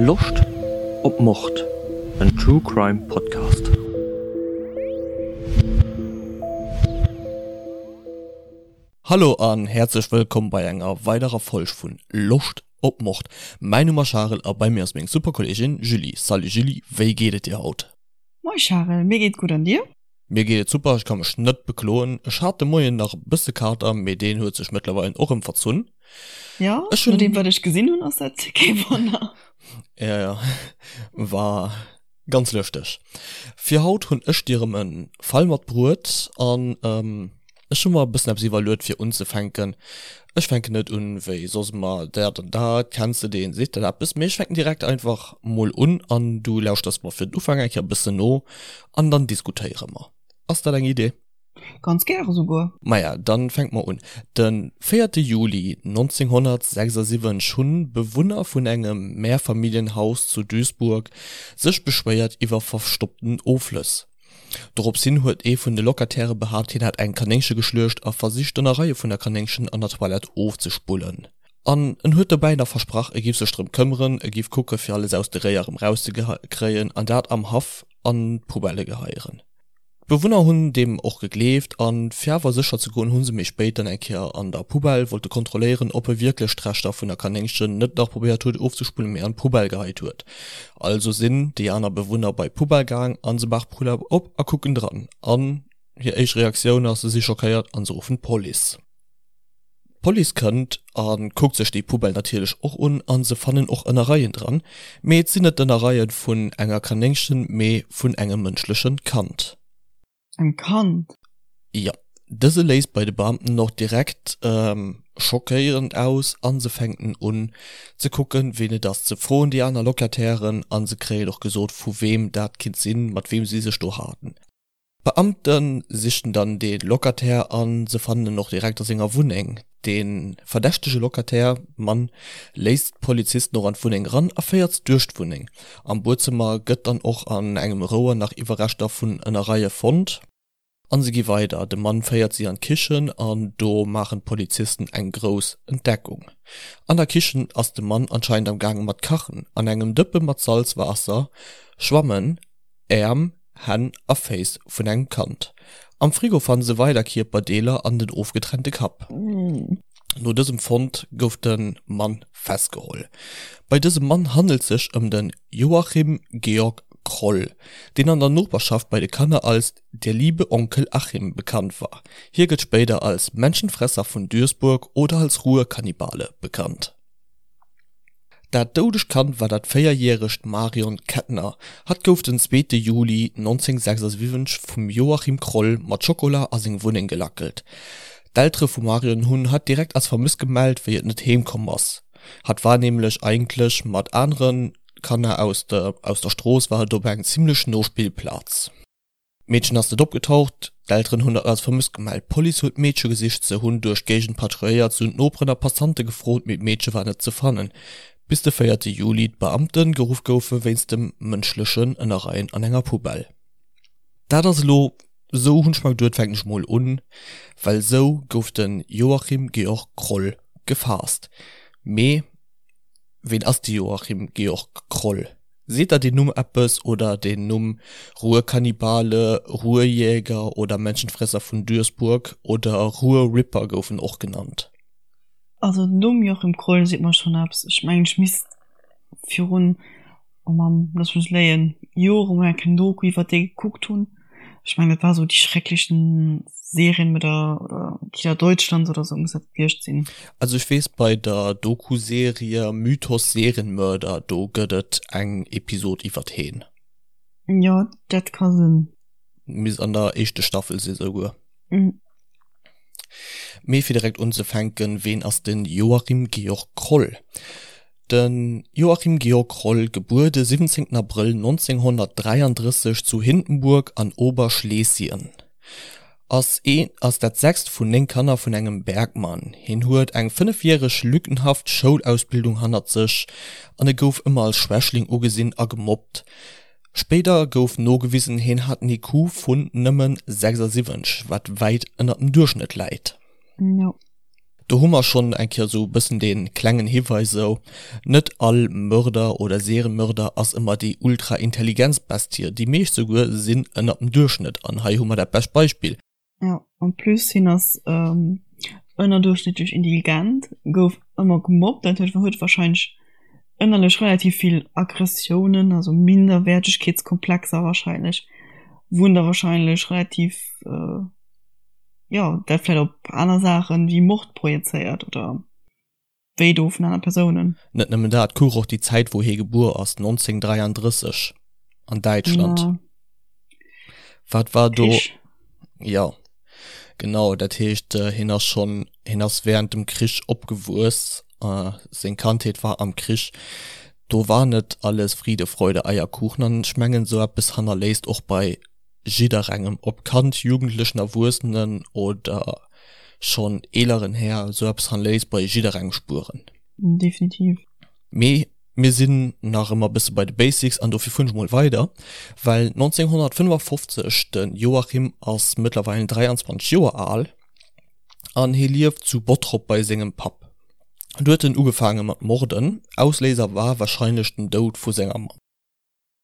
Loscht op Mord? En True Crime Podcast. Hallo an häerzlech wëllkomm bei enger weiderer Folg vun Loscht op Mord. Mäin Numm ass Charel a bei mir ass meng super Kolleegin Julie. Salut Julie, wéi geet et dir haut? Moi Charel, mir geet gutt an dir? Mir geet et super, ech ka mech net bekloen. Ech hat de Moien nach e bësse Kater, mee deen huet sech mëttlerweil och erëm verzunn. Jo, Ech hunn. nodeem wat ech gesinn hunn ass dat kee Wonner. Ja, ja, war ganz lëschteg. Fir haut hunn ech dir erëm e Fall matbruet an ech hu mer e bëssen eppes iwwerluet fir unzefänken. Ech fänken net un wéi soss ëmmer dat an dat, kenns de deen, seet dat eppes, mee ech fänken direkt einfach mol un an du lauschters mer fir den Ufank eng Kéier e bëssen no An dann diskutéiere mer. Ass dat eng Idee? Ganz gäre souguer. Maja, dann fänke mer un. De véierte Juli 1976 hunn Bewunner vun engem Mehrfamilienhaus zu Duisburg sech beschwéiert iwwer verstoppten Offlëss. Dorops hin huet ee vun de Locataire behaapt, hien hätt eng Kanéngche geschluecht a versicht d'Ënnereie vun der Kanéngchen an der Toilette ofzespullen. An en huet dobäi nach versprach, e giff sech drëm këmmeren, e giff kucke fir alles aus de Réier erëm rauszekréien an dat am Haff an d'Poubelle geheieren. D'Bewunner hunn deem och gegleeft an fir awer sécher ze goen, hu se méi spéit dann eng Kéier an der Poubelle wollte kontrolléieren, ob e wierklech d'Reschter vun der Kanéngchen net nach probéiert huet ofzespullen, mee an d'Poubelle geheit huet. Also sinn déi aner Bewunner bei d'Poubelle gaang an se maachen d'Poubelle op a kucken dran an hir éischt Reaktioun ass, se si schockéiert an se ruffen d'Police. D'Police kënnt a kuckt sech déi Poubelle natierlech och un a se fannen och Ënnereien dran, mee et sinn net d'Ënnereie vun enger Kanéngchen, mee vun engem mënschleche Kand. Engem Kand? Jo. Dëse léist bei de Beamten och direkt schockéierend aus a se fänken un ze kucken, ween et ass, se froen déi aner Locatairen a se kréien och gesot, vu weem dat kinnt sinn, mat weem si sech do haten. D'Beamte sichen dann de Locataire a se fannen en och direkt a senger Wunneng. De verdächtege Locataire, Mann, léisst d'Polizisten och an d'Wunneng eran a féiert se duerch d'Wunneng. Am Buedzëmmer gëtt dann och an engem Rouer nach Iwwerreschter vun Ënnereie fonnt. An se gi weider, de Mann féiert si an d'Kichen an do maachen d'Polizisten eng grouss Entdeckung. An der Kichen ass de Mann anscheinend am gaange mat kachen. An engem Dëppe mat Salzwaasser schwammen Äerm, Hänn a Féiss vun engem Kand. Am Frigo fanne se weider Kierperdeeler an den ofgetrennte Kapp. No dësem Fond gouf de Mann festgeholl. Bei dësem Mann handelt sech ëm de Joachim Georg Kroll, deen an der Noperschaft bei de Kanner als der liebe Onkel Achim bekannt war. Hie gëtt spéider als Menschenfresser vun Duisburg oder als Ruhrkannibale bekannt. Dat doudegt Kand war dat véierjäregt Marion Kettner. Hatt gouf den zweete Juli 1976 vum Joachim Kroll mat Schokola a seng Wunneng gelackelt. D'Eltere vum Marion hunn hatt direkt als vermësst gemellt, wéi et net heem komm ass. Hatt war nämlech eigentlech mat anere Kanner aus der Strooss war et op eng zimmlech no Spillplaz. D'Meedchen ass net opgetaucht, d'Elteren hunn dat als vermësst gemellt. D'Police huet d'Meedche gesicht, se hunn duerch d'Géigend patrouilléiert, se hunn d'Noperen a Passante gefrot, mee d'Meedche war net ze fannen, bis de véierte Juli d'Beamte geruff goufe wéinst dem mënschlechen Ënnerreien an enger Poubelle. Dat ass elo esou, hunn ech mer geduet, fänken ech mol un, well esou gouf de Joachim Georg Kroll gefaasst. Mee ween ass de Joachim Georg Kroll? Seet der deen Numm eppes oder den Numm Ruhrkannibale, Ruhrjäger oder Menschenfresser vun Duisburg oder Ruhrripper gouf en och genannt? Also den Numm Joachim Kroll seet mer schon eppes. Ech mengen ech misst virun, oh Mamm, looss mech léien, Jore mol eng kleng Doku iwwert dee gekuckt hunn. Ech mengen dat war sou die schrecklichen Serienmörder oder Killer Deutschlands oder sou muss dat gewiescht sinn. Also ech weess bei der Dokuserie Mythos Serienmörder do gëtt et eng Episod iwwert heen. Jo dat ka sinn. Misst an der éischte Staffel si souguer. Mee fir direkt unzefänken, ween ass den Joachim Georg Kroll? De Joachim Georg Kroll, gebuer de 17 Abrëll 1933 zu Hindenburg an Oberschlesien, ass ee ass dat sechst vun 9 Kanner vun engem Bergmann. Hien huet eng fënnefjäreg lückenhaft Schoulausbildung hannert sech an e gouf ëmmer als Schwächling ugesinn a gemobbt. Spéider gouf nogewisen, hien hat en IQ vun nëmmen 76, wat wäit ënner dem Duerchschnëtt läit. Do hu mer schonn eng Kéier esou e bëssen dee klengen Hiweis esou, net all Mörder oder Serienmörder ass ëmmer déi ultra intelligent Bestie, déi meescht souguer sinn ënnert dem Duerchschnëtt an hei hu mer dat bescht Beispill. Jo, en plus hien ass ënnerduerchschnëttlech intelligent, gouf ëmmer gemobbt, dat huet huet warscheinlech ënnerlech relativ vill Aggressiounen, also Minderwäertegkeetskomplexer warscheinlech, wou en da warscheinlech relativ. jo dat vläit op aner Saachen wéi Mord projezéiert oder wéi do vun aner Persounen. Net nëmmen dat, kuch och déi Zäit wou hie gebuer ass, 1933 an Däitschland. Ja. Wat war do? Krich. Ja genau, dat heescht hien ass schonn, hien ass während dem Krich opgewuess, seng Kandheet war am Krich, do war net alles Friede, Freude, Eierkuchen an ech mengen esou eppes hannerléisst och bei jidderengem, ob Kand, Jugendlechen, Erwuessenen oder schonn eeleren Här, esou eppes hannerléisst bei jidderengem Spueren. Definitiv. Mee mir sinn nach ëmmer e bësse bei de Basics an dofir fueren ech mol weider, well 1955, de Joachim ass mëttlerweil 23 Joer al an hie lieft zu Bottrop bei sengem Papp. Do huet en ugefaange mat morden, Ausléiser war warscheinlech den Doud vu senger Mamm.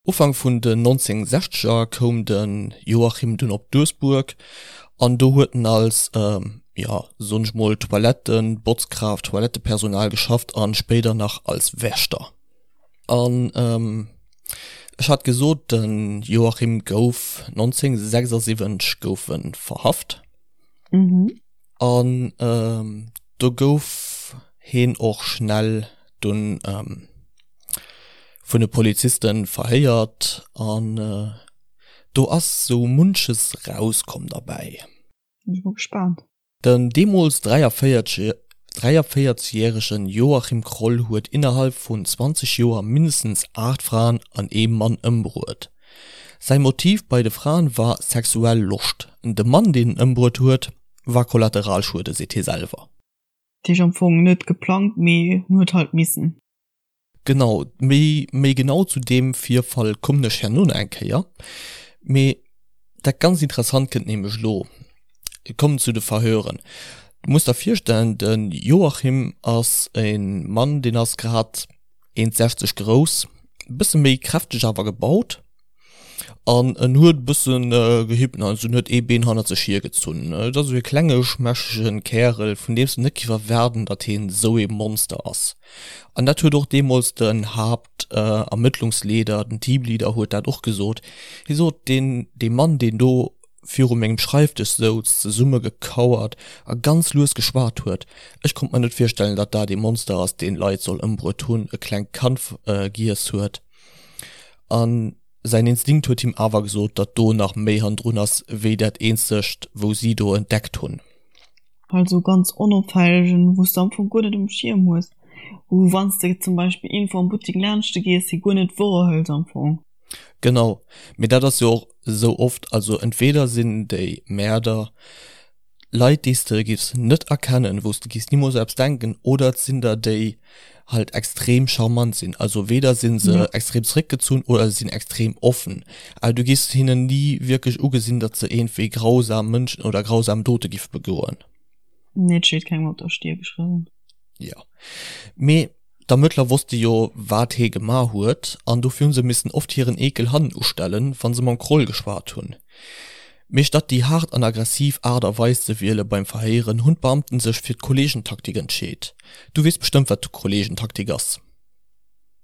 Ufank vun den 1960er koum de Joachim dunn op Duesbuerg an do huet en als, jo soen ech mol Toilettenbotzkraaft, Toilettepersonal geschafft an spéider nach als Wächter. An ech hat gesot, de Joachim gouf 1976 gouf en verhaft. An do gouf heen och schnell dunn vun de Polizisten verhéiert an do ass sou munches rauskomm derbäi. Sinn ech mol gespaant. Den deemools 43 järegen Joachim Kroll huet innerhalb vun 20 Joer mindestens 8 Fraen an ee Mann ëmbruet. Säi Motiv bei de Fraen war sexuell Loscht, de Mann deen en ëmbruet huet war Kollateralschuede, seet hie selwer. Dat heescht am Fong net geplangt, mee en huet halt missen. Genau, méi méi genau zu deem Virfall kommen ech herno nach eng Kéier. Mee dat ganz Interessant kënnt nämlech elo. Et kommt zu de Verhören. Du muss der virstellen, de Joachim ass e Mann, deen ass grad 1,60 grouss, e bësse méi kräfteg awer gebaut. An en huet e bëssen gehippt, also en huet ee Been hannert sech hiergezunn. Et ass esou e klenge schmächtegen Kärel, vun deem s de net giff erwaarden, datt hien esou ee Monster ass. An dat huet och deemools den Haaptermëttlungsleeder, den Teamleader huet dat och gesot. Hie sot, deen, dee Mann, deen do viru mengem Schreifdësch souz, zesummegekauert a ganz lues geschwat huet, ech konnt mer net virstellen, datt dat ee Monster ass, deen Leit soll ëmbruet hunn, e klengt Kand giess huet. An säin Instinkt huet him awer gesot, datt do nach méi hannendrun ass, wéi dat eenzegt, wou si do entdeckt hunn. Halt sou ganz onopfällegen, wou s de am Fong guer net um Schierm hues, wou wann s de zum Beispill iergendwou am Buttek laanschte gees, se guer net wouerhëls am Fong. Genau, mee dat ass jo och esou oft, also entweder sinn déi Mäerder Leit déi s de giffs net erkennen, wou s de giffs nimools eppes denken, oder et sinn der déi halt extrem charmant sinn, also weder sinn se ja. extrem zréckgezunn oder se sinn extrem offen, awer du giffs hinnen ni wierklech ugesinn, datt se iergendwéi grausam Mënschen oder grausam Dote giff begoen. Nee, et steet kengem op der Stier geschriwwen. Ja, mee D'Ermëttler wosste jo, wat hee gemaach huet, an dofir hu se missen oft hiren Eekel hannen ustellen, wa se mam Kroll geschwat hunn. Mee statt déi haart an aggressiv Aart a Weis ze wiele beim Verhéieren, hunn d'Beamten sech fir d'Kolleegentaktik entscheet. Du weess bestëmmt, wat d'Kolleegentaktik ass?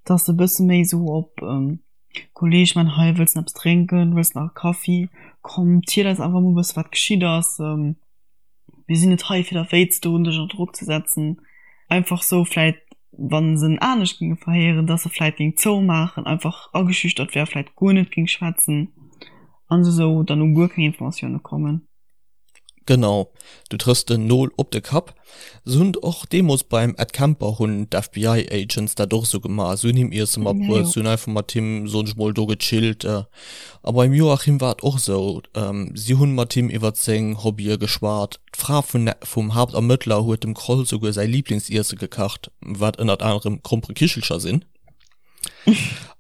Dass e bësse méi esou op Kolleeg, man, hei, wëlls de eppes drénken, wëlls de nach e Kaffi? Komm, ziel eis einfach mol e bësse wat geschitt ass. Mir sinn net hei fir der wéi ze doen, dech ënner Drock ze setzen. Einfach sou vläit, wa se en anescht géinge verhéieren, dass e vläit géing zoumaachen, einfach ageschüchtert wär, vläit guer net géing schwätzen an se sou dann u guer keng Informatioune kommen. Genau, du trëffs den Nol op de Kapp. Se hunn och deemools beim Ed Kemper hunn d'FBI Agents dat och esou gemaach. Se hunn him Iesse matbruet, se hunn einfach mat him, soen ech mol, do gechillt. A beim Joachim war et och esou, si hunn mat him iwwert seng Hobbye geschwat. D'Fra vun vum Haaptermëttler huet dem Kroll souguer säi Liiblingsiesse gekacht, wat ënnert anerem Gromperekichelcher sinn.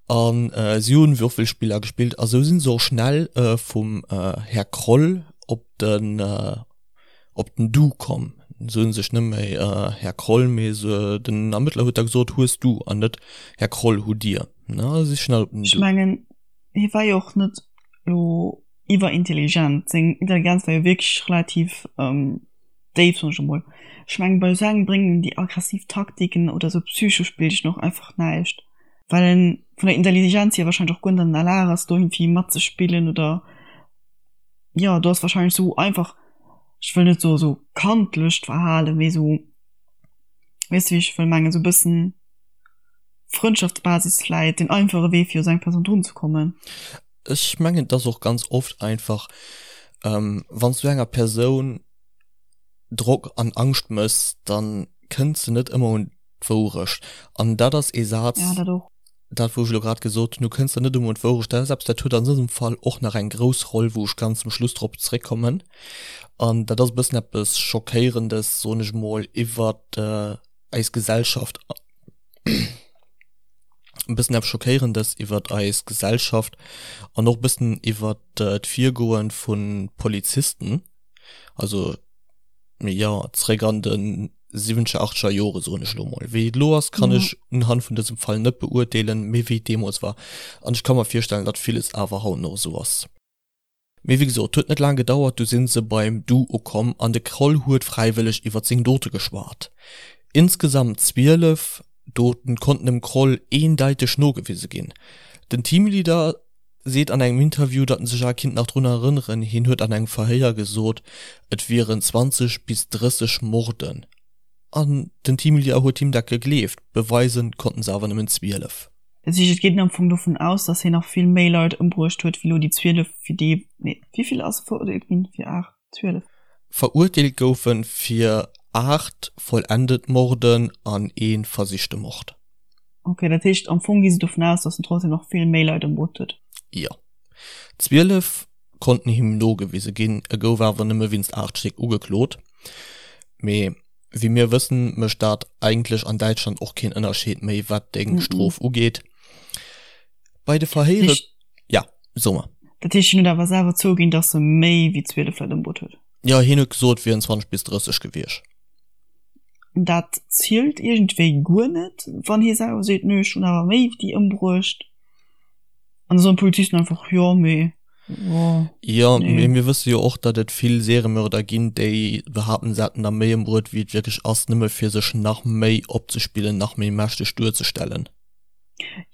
An si hunn Würfelspiller gespillt a sou sinn se och schnell vum Här Kroll op den op den Du komm. Se hunn sech net méi Här Kroll, mee se, den Ermëttler huet da gesot, hues du an net Här Kroll, hutt Dir. Ne, si schnell op den Ech mengen, hie war jo och net elo iwwerintelligent. Seng Intelligenz war jo wierklech relativ déif, soen ech emol. Ech mengen, bei esou engem bréngen déi aggressiv Taktiken oder esou Psychospillchen och einfach näischt, well en vun der Intelligenz hier wahrscheinlech och guer net an der Lag ass, do iergendwéi matzespillen oder, jo, do ass wahrscheinlech esou einfach, ech wëll net soe sou kandlecht Verhalen, mee sou, weess de wéi ech wëll mengen, sou e bëssen Frëndschaftsbasis vläit den einfache Wee fir u sou eng Persoun drun ze kommen. Ech mengen et ass och ganz oft einfach, wann s du enger Persoun Drock an Angscht mëss, dann kënnt se net ëmmer un d'Wourecht. An dat ass ee Saz, Ja, dat och. dat wou ech elo grad gesot hunn, du kënns der net ëmmer un d'Wourecht, dat ass eppes, dat huet an dësem Fall och nach eng grouss Roll, wou ech ganz zum Schluss drop zréckkommen. An dat ass e bëssen eppes Schockéierendes, soen ech emol, iwwert eis Gesellschaft, e bëssen eppes Schockéierendes iwwert eis Gesellschaft an och e bëssen iwwert d'Virgoe vu Polizisten, also jo, zréck an de siwwenzeger, achteger Jore soen ech elo mol. Wéi et elo ass, kann ech unhand vun dësem Fall net beurteelen, mee wéi et deemools war. An ech ka mer virstellen, datt villes awer haut nach esou ass. Mee wéi gesot, huet net laang gedauert, du sinn se beim Du ukomm an de Kroll huet fräiwëlleg iwwert seng Dote geschwat. Insgesamt 12 Doten konnten dem Kroll eendeiteg nogewise ginn. Den Teamleader seet an engem Interview, datt en sech awer kinnt nach drun erënneren, hien huet an engem Verhéier gesot, et wieren 20 bis 30 Morden. An den Teamleader huet him dat gegleeft, beweisen konnten se awer nëmmen 12. Dat heescht, et geet een am Fong dovun aus, datt hien nach vill méi Leit ëmbruecht huet, wéi elo déi 12, fir déi, nee, wéi vill ass e verurteelt ginn? Fir 8? 12? Verurteelt gouf en fir 8 vollendet Morden an ee versichte Mord. Ok, dat heescht am Fong gi se dovun aus, datt en trotzdem nach vill méi Leit ëmbruecht huet. Jo. 12 konnten him nogewise ginn, e gouf awer nëmme wéinst 8 Stéck ugeklot. Mee wéi mir wëssen, mécht dat eigentlech an Däitschland och keen Ënnerscheed méi, wat deng Strof ugeet. Bei de Verhéiere. Ja, so mer. Dat heescht, hien huet awer selwer zouginn, datt e méi wéi 12 Leit ëmbruet huet? Jo, hien huet gesot, et wieren 20 bis 30 gewiescht. Dat zielt iergendwéi guer net, wann hie selwer seet, nö, ech hunn awer méi wéi déi ëmbruecht. An da soen d'Polizisten einfach, jo, mee, jo, Jo, nee. Mee mir wësse jo och, datt et vill Seriemörder ginn, déi behaapten, se hätten der méi ëmbruet, wéi et wierklech ass, nëmme fir sech nach méi opzespillen, nach méi mächteg duerzestellen.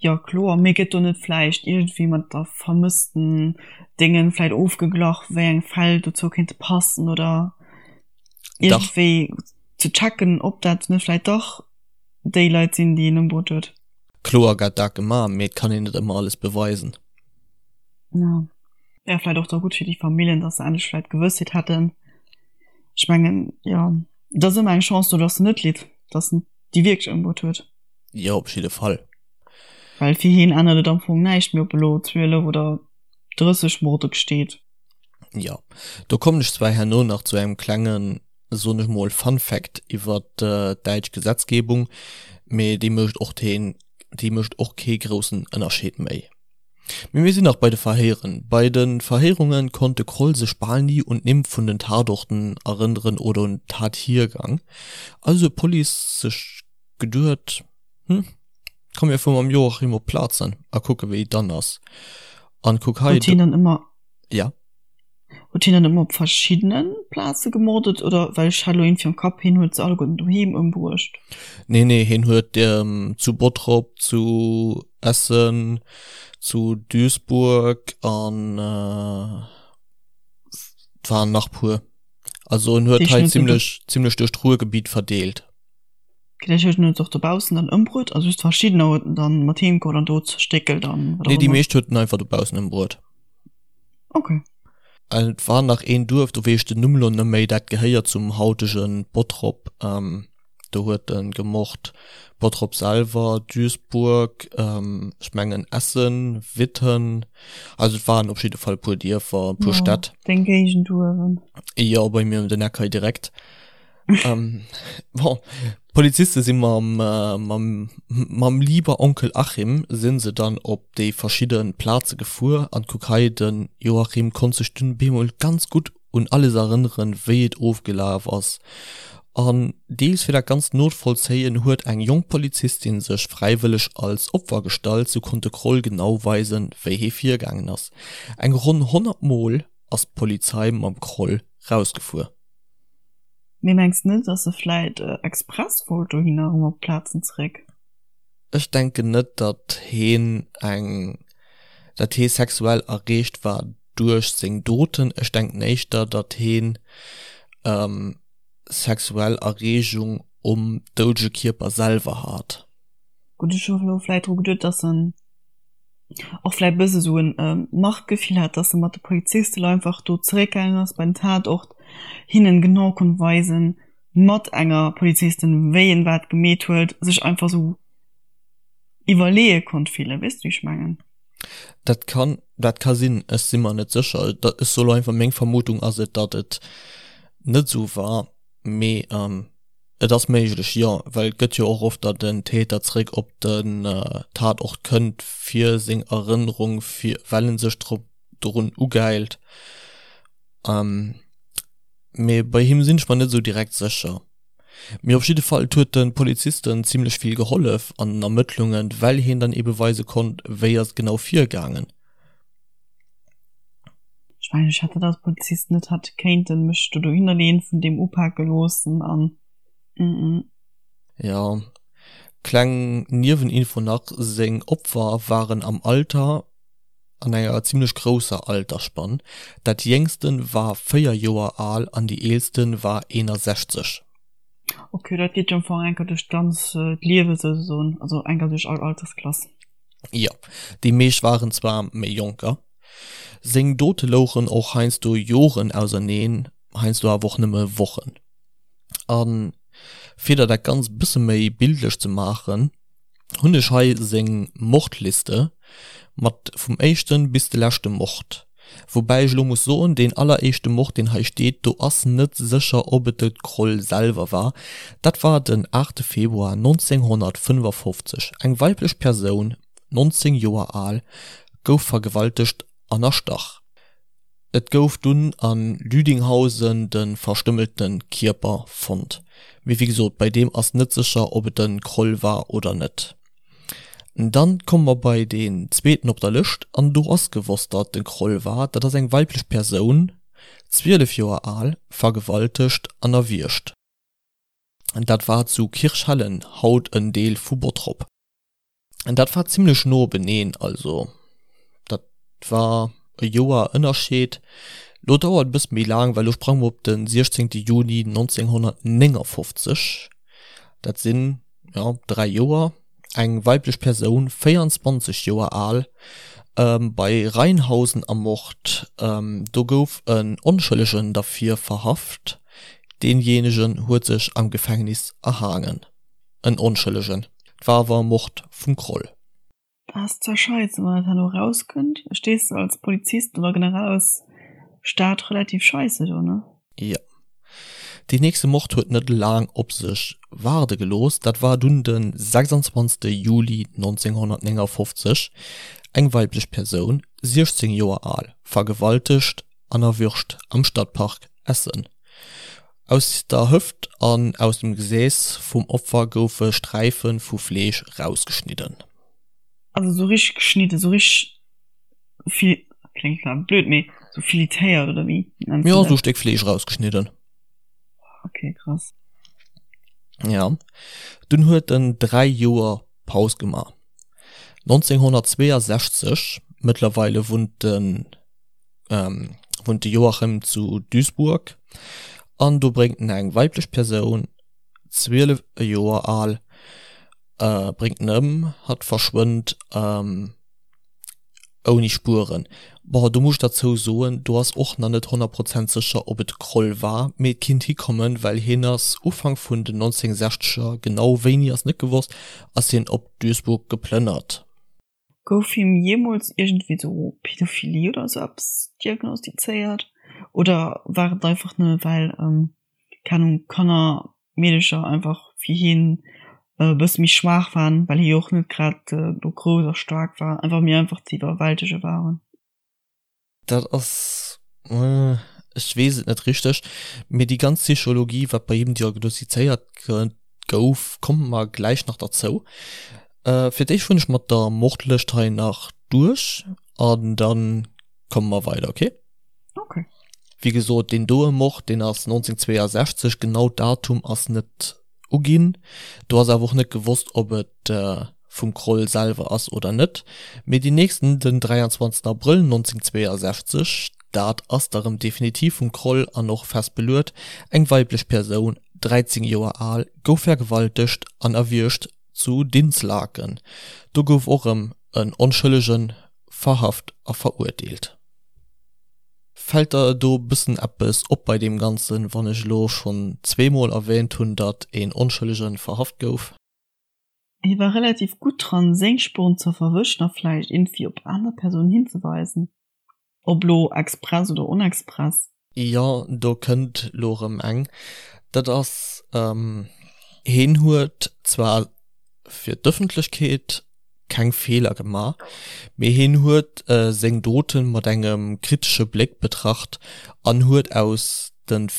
Jo kloer, mee gëtt do net vläicht iergendwéi mat der vermëssten Déngen vläicht ofgeglach, wéi eng Fäll dozou kéinte passen oder iergendwéi ze checken, ob dat net vläicht dach déi Leit sinn, déi een ëmbruet huet? Kloer gett dat gemaach, mee et kann een net ëmmer alles beweisen. Jo, wär vläicht och da gutt fir déi Familljen, dass se endlech vläicht Gewëssheet hätten. Ech mengen, jo, et ass ëmmer eng Chance do, dass en net litt, dass en déi wierklech ëmbruet huet. Jo, op jidde Fall. Well fir hien ännert et am Fong näischt méi, ob elo 12 oder 30 Morde gesteet. Jo, do kommen ech zwar herno nach zu engem klengen, soen ech mol, Fun Fact iwwer d'däitsch Gesetzgebung, mee déi mécht och deen, déi mécht och kee groussen Ënnerscheed méi. Mee mir sinn nach bei de Verhéieren. Bei de Verhéierunge konnt de Kroll sech bal ni un d'Nimm vun den Tatorten erënneren oder un den Tathiergang. Also huet d'Police sech geduet, Hm, komm mir fuere mam Joachim op d'Plazen a kucke wéi et dann ass. An kuck hei, Huet hien dann ëmmer. Ja? Huet hien dann ëmmer op verschiddene Plaze gemordet oder? Well ech hat elo iergendwéi am Kapp, hien huet se alleguerten doheem ëmbruecht. Nee, nee, hien huet zu Bottrop, zu Essen, zu Duisburg an et waren nach puer. Also en huet hei zimmlech, zimmlech duerch d'Ruhrgebiet verdeelt. Vläicht huet en et och dobaussen dann ëmbruet, also just verschiddener huet en dann mat heem geholl an do zerstéckelt an wat och Nee, déi ëmmer. meescht huet en einfach dobaussen ëmbruet. Okay. An et war nach een Duerf, do weess ech den Numm lo net méi, dat gehéiert zum hautege Bottrop. Do huet en gemort. Bottrop selwer, Duisburg, ech mengen Essen, Witten, also et waren op jidde Fall e puer Dierfer, e puer Stätt. Deng Géigend uewen. Jo, bei mir ëm den Eck hei direkt. Ähm, bon, Poliziste si mam, äh, mam, mam lieber Onkel Achim sinn se dann op déi verschidde Plaze gefuer an kuck hei, den Joachim konnt sech dunn bemol ganz gutt un alles erënneren, wéi et ofgelaf ass. An deels fir dat Ganzt novollzéien, huet eng jonk Polizistin sech fräiwëlleg als Opfer gestallt. Sou konnt de Kroll genau weisen, wéi hie virgaangen ass. Eng ronn 100 Mol ass d'Polizei mam Kroll rausgefuer. Mee mengs net dass e vläit express wollt dohinner erëm op d'Plazen zeréck? Ech denken net datt heen eng, datt hee sexuell erreegt war duerch seng Doten. Ech denken éischter datt heen sexuell Erreegung um doudege Kierper selwer hat. Gutt, ech hu elo vläit dru geduet, datt en och vläit e bësse sou en Machtgefill hat, datt e mat de Polizisten einfach do zeréckgaangen ass bei den Tatort, hinnen genau konnt weisen, mat enger Polizistin, wéi en wat gemeet huet, sech einfach sou iwwerleeë konnt fillen. Weess de, wéi ech mengen? Dat kann, dat ka sinn, ech si mer net sécher. Ech soe lo einfach, meng Vermutung ass et, datt et net esou war, mee et ass méiglech, jo, well et gëtt jo och oft, datt en Täter zréck op den Tatort kënnt fir seng Erënnerung, fir well en sech drop dorun ugäilt. Mee bei him sinn ech mer net esou direkt sécher. Mee op jidde Fall, et huet de Polizisten zimlech vill gehollef an den Ermëttlungen, well hien dann ebe weise konnt, wéi ass et genau virgaangen. Ech mengen, ech hätt dat als Polizist net hätt kéinten mech do dohinner leeën, vun deem upake loossen an mm. Jo, kleng Nieweninfo nach, seng Opfer waren am Alter an enger zimlech grousser Altersspann, dat jéngsten war 4 Joer al an déi eelsten war 61. Ok, dat geet jo am Fong enker duerch d'ganz d'Liewe souzesoen, also enker duerch all Altersklass. Jo, déi meescht waren zwar méi jonker. Seng Dote louchen och heiansdo Joren auserneen, heiansdo awer och nëmme Wochen. A fir der dat Ganzt bësse méi bildlech ze maachen, hunn ech hei seng Mordliste mat vum éischten bis de leschte Mord. Woubäi ech elo muss soen, deen alleréischte Mord deen hei steet, do ass net sécher ob et de Kroll selwer war. Dat war den 8 Februar 1955, eng weiblech Persoun, 19 Joer al, gouf vergewaltegt an erstach. Et gouf dunn a Lüdinghausen de verstümmelte Kierper fonnt. Mee wéi gesot, bei deem ass net sécher, ob et de Kroll war oder net. Dann komme mer bei deen zweeten op der Lëscht an do ass gewosst, datt et de Kroll war. Dat ass eng weiblech Persoun, 12 Joer al, vergewaltegt an erwiergt. Dat war zu Kirchhellen, haut en Deel vu Bottrop. Dat war zimlech no beneen, also dat war e Joer Ënnerscheed. Lo dauert e bësse méi laang, well lo sprange mer op de 16 Juni 1959, dat sinn, jo, 3 Joer. Eng weiblech Persoun, 24 Joer al, bei Rheinhausen ermort. Do gouf en Onschëllegen derfir verhaft, deenjéinegen huet sech am Gefängnis erhaangen. En Onschëllegen. 't war awer e Mord vum Kroll. Dat ass zwar scheisse wann dat herno erauskënnt, stees de als Polizist oder generell als Staat relativ scheisse do, ne? Jo. Deen nächste Mord huet net laang op sech waarde gelooss, dat war dunn de 26 Juli 1959. Eng weiblech Persoun, 16 Joer al, vergewaltegt an erwürgt am Stadtpark Essen. Aus der Hëft an aus dem Gesäß vum Opfer goufe Sträife vu Fleesch rausgeschnidden. Also sou richteg geschnidden, sou richteg fil, kléngt zwar blöd, mee sou filetéiert oder wéi nenns du dat? Jo, sou Stéck Fleesch rausgeschnidden. Ok, krass. Ja, dunn huet en 3 Joer Paus gemaach. 1962, mëttlerweile wunnt den. wunnt de Joachim zu Duisburg an do bréngt en eng weiblech Persoun, 12 Joer al, bréngt en ëm, hatt verschwënnt ouni Spueren. Bon, do muss ech derzou soen, do ass och nach net 100 Prozent sécher, ob et de Kroll war, mee et kinnt hikommen, well hien ass Ufank vun den 1960er, genau wéini ass net gewosst, ass hien op Duisburg geplënnert. Gouf him jeemools iergendwéi sou Pädophilie oder sou eppes diagnostizéiert? Oder war et einfach nëmme well, keng Ahnung, Kanner, Meedecher einfach fir hien e bësse méi schwaach waren, well hie jo och net grad do grouss a staark war, einfach méi einfach ze iwwerwältege waren? Dat ass. Ech weess et net richteg, mee déi ganz Psychologie, wat bei him diagnostizéiert gouf, komme mer gläich nach derzou. Fir d'éischt fueren ech mat der Mordlëscht hei nach duerch an dann komme mer weider, ok? Ok. Wéi gesot, deen doe Mord, deen ass 1962, genau d'Datum ass net uginn. Do ass awer och net gewosst, ob et vum Kroll selwer ass oder net. Mee deen nächsten, den 23 Abrëll 1962, dat ass da rëm definitiv vum Kroll an och fest beluet, eng weiblech Persoun, 13 Joer al, gouf vergewaltegt an erwiergt zu Dinslaken. Do gouf och rëm en Onschëllege verhaft a verurteelt. Fällt der do bëssen eppes op bei deem Ganzen, wann ech elo schonn zweemol erwähnt hunn, datt een Onschëllegen verhaft gouf? Hie war relativ gutt dran, seng Spuren ze verwëschen a vläicht iergendwéi op aner Persounen hinzeweisen, ob lo express oder onexpress. Jo, do kënnt lo rëm eng. Dat ass, hien huet zwar fir d'Ëffentlechkeet keng Feeler gemaach, mee hien huet seng Doten mat engem kritesche Bléck betracht an huet aus den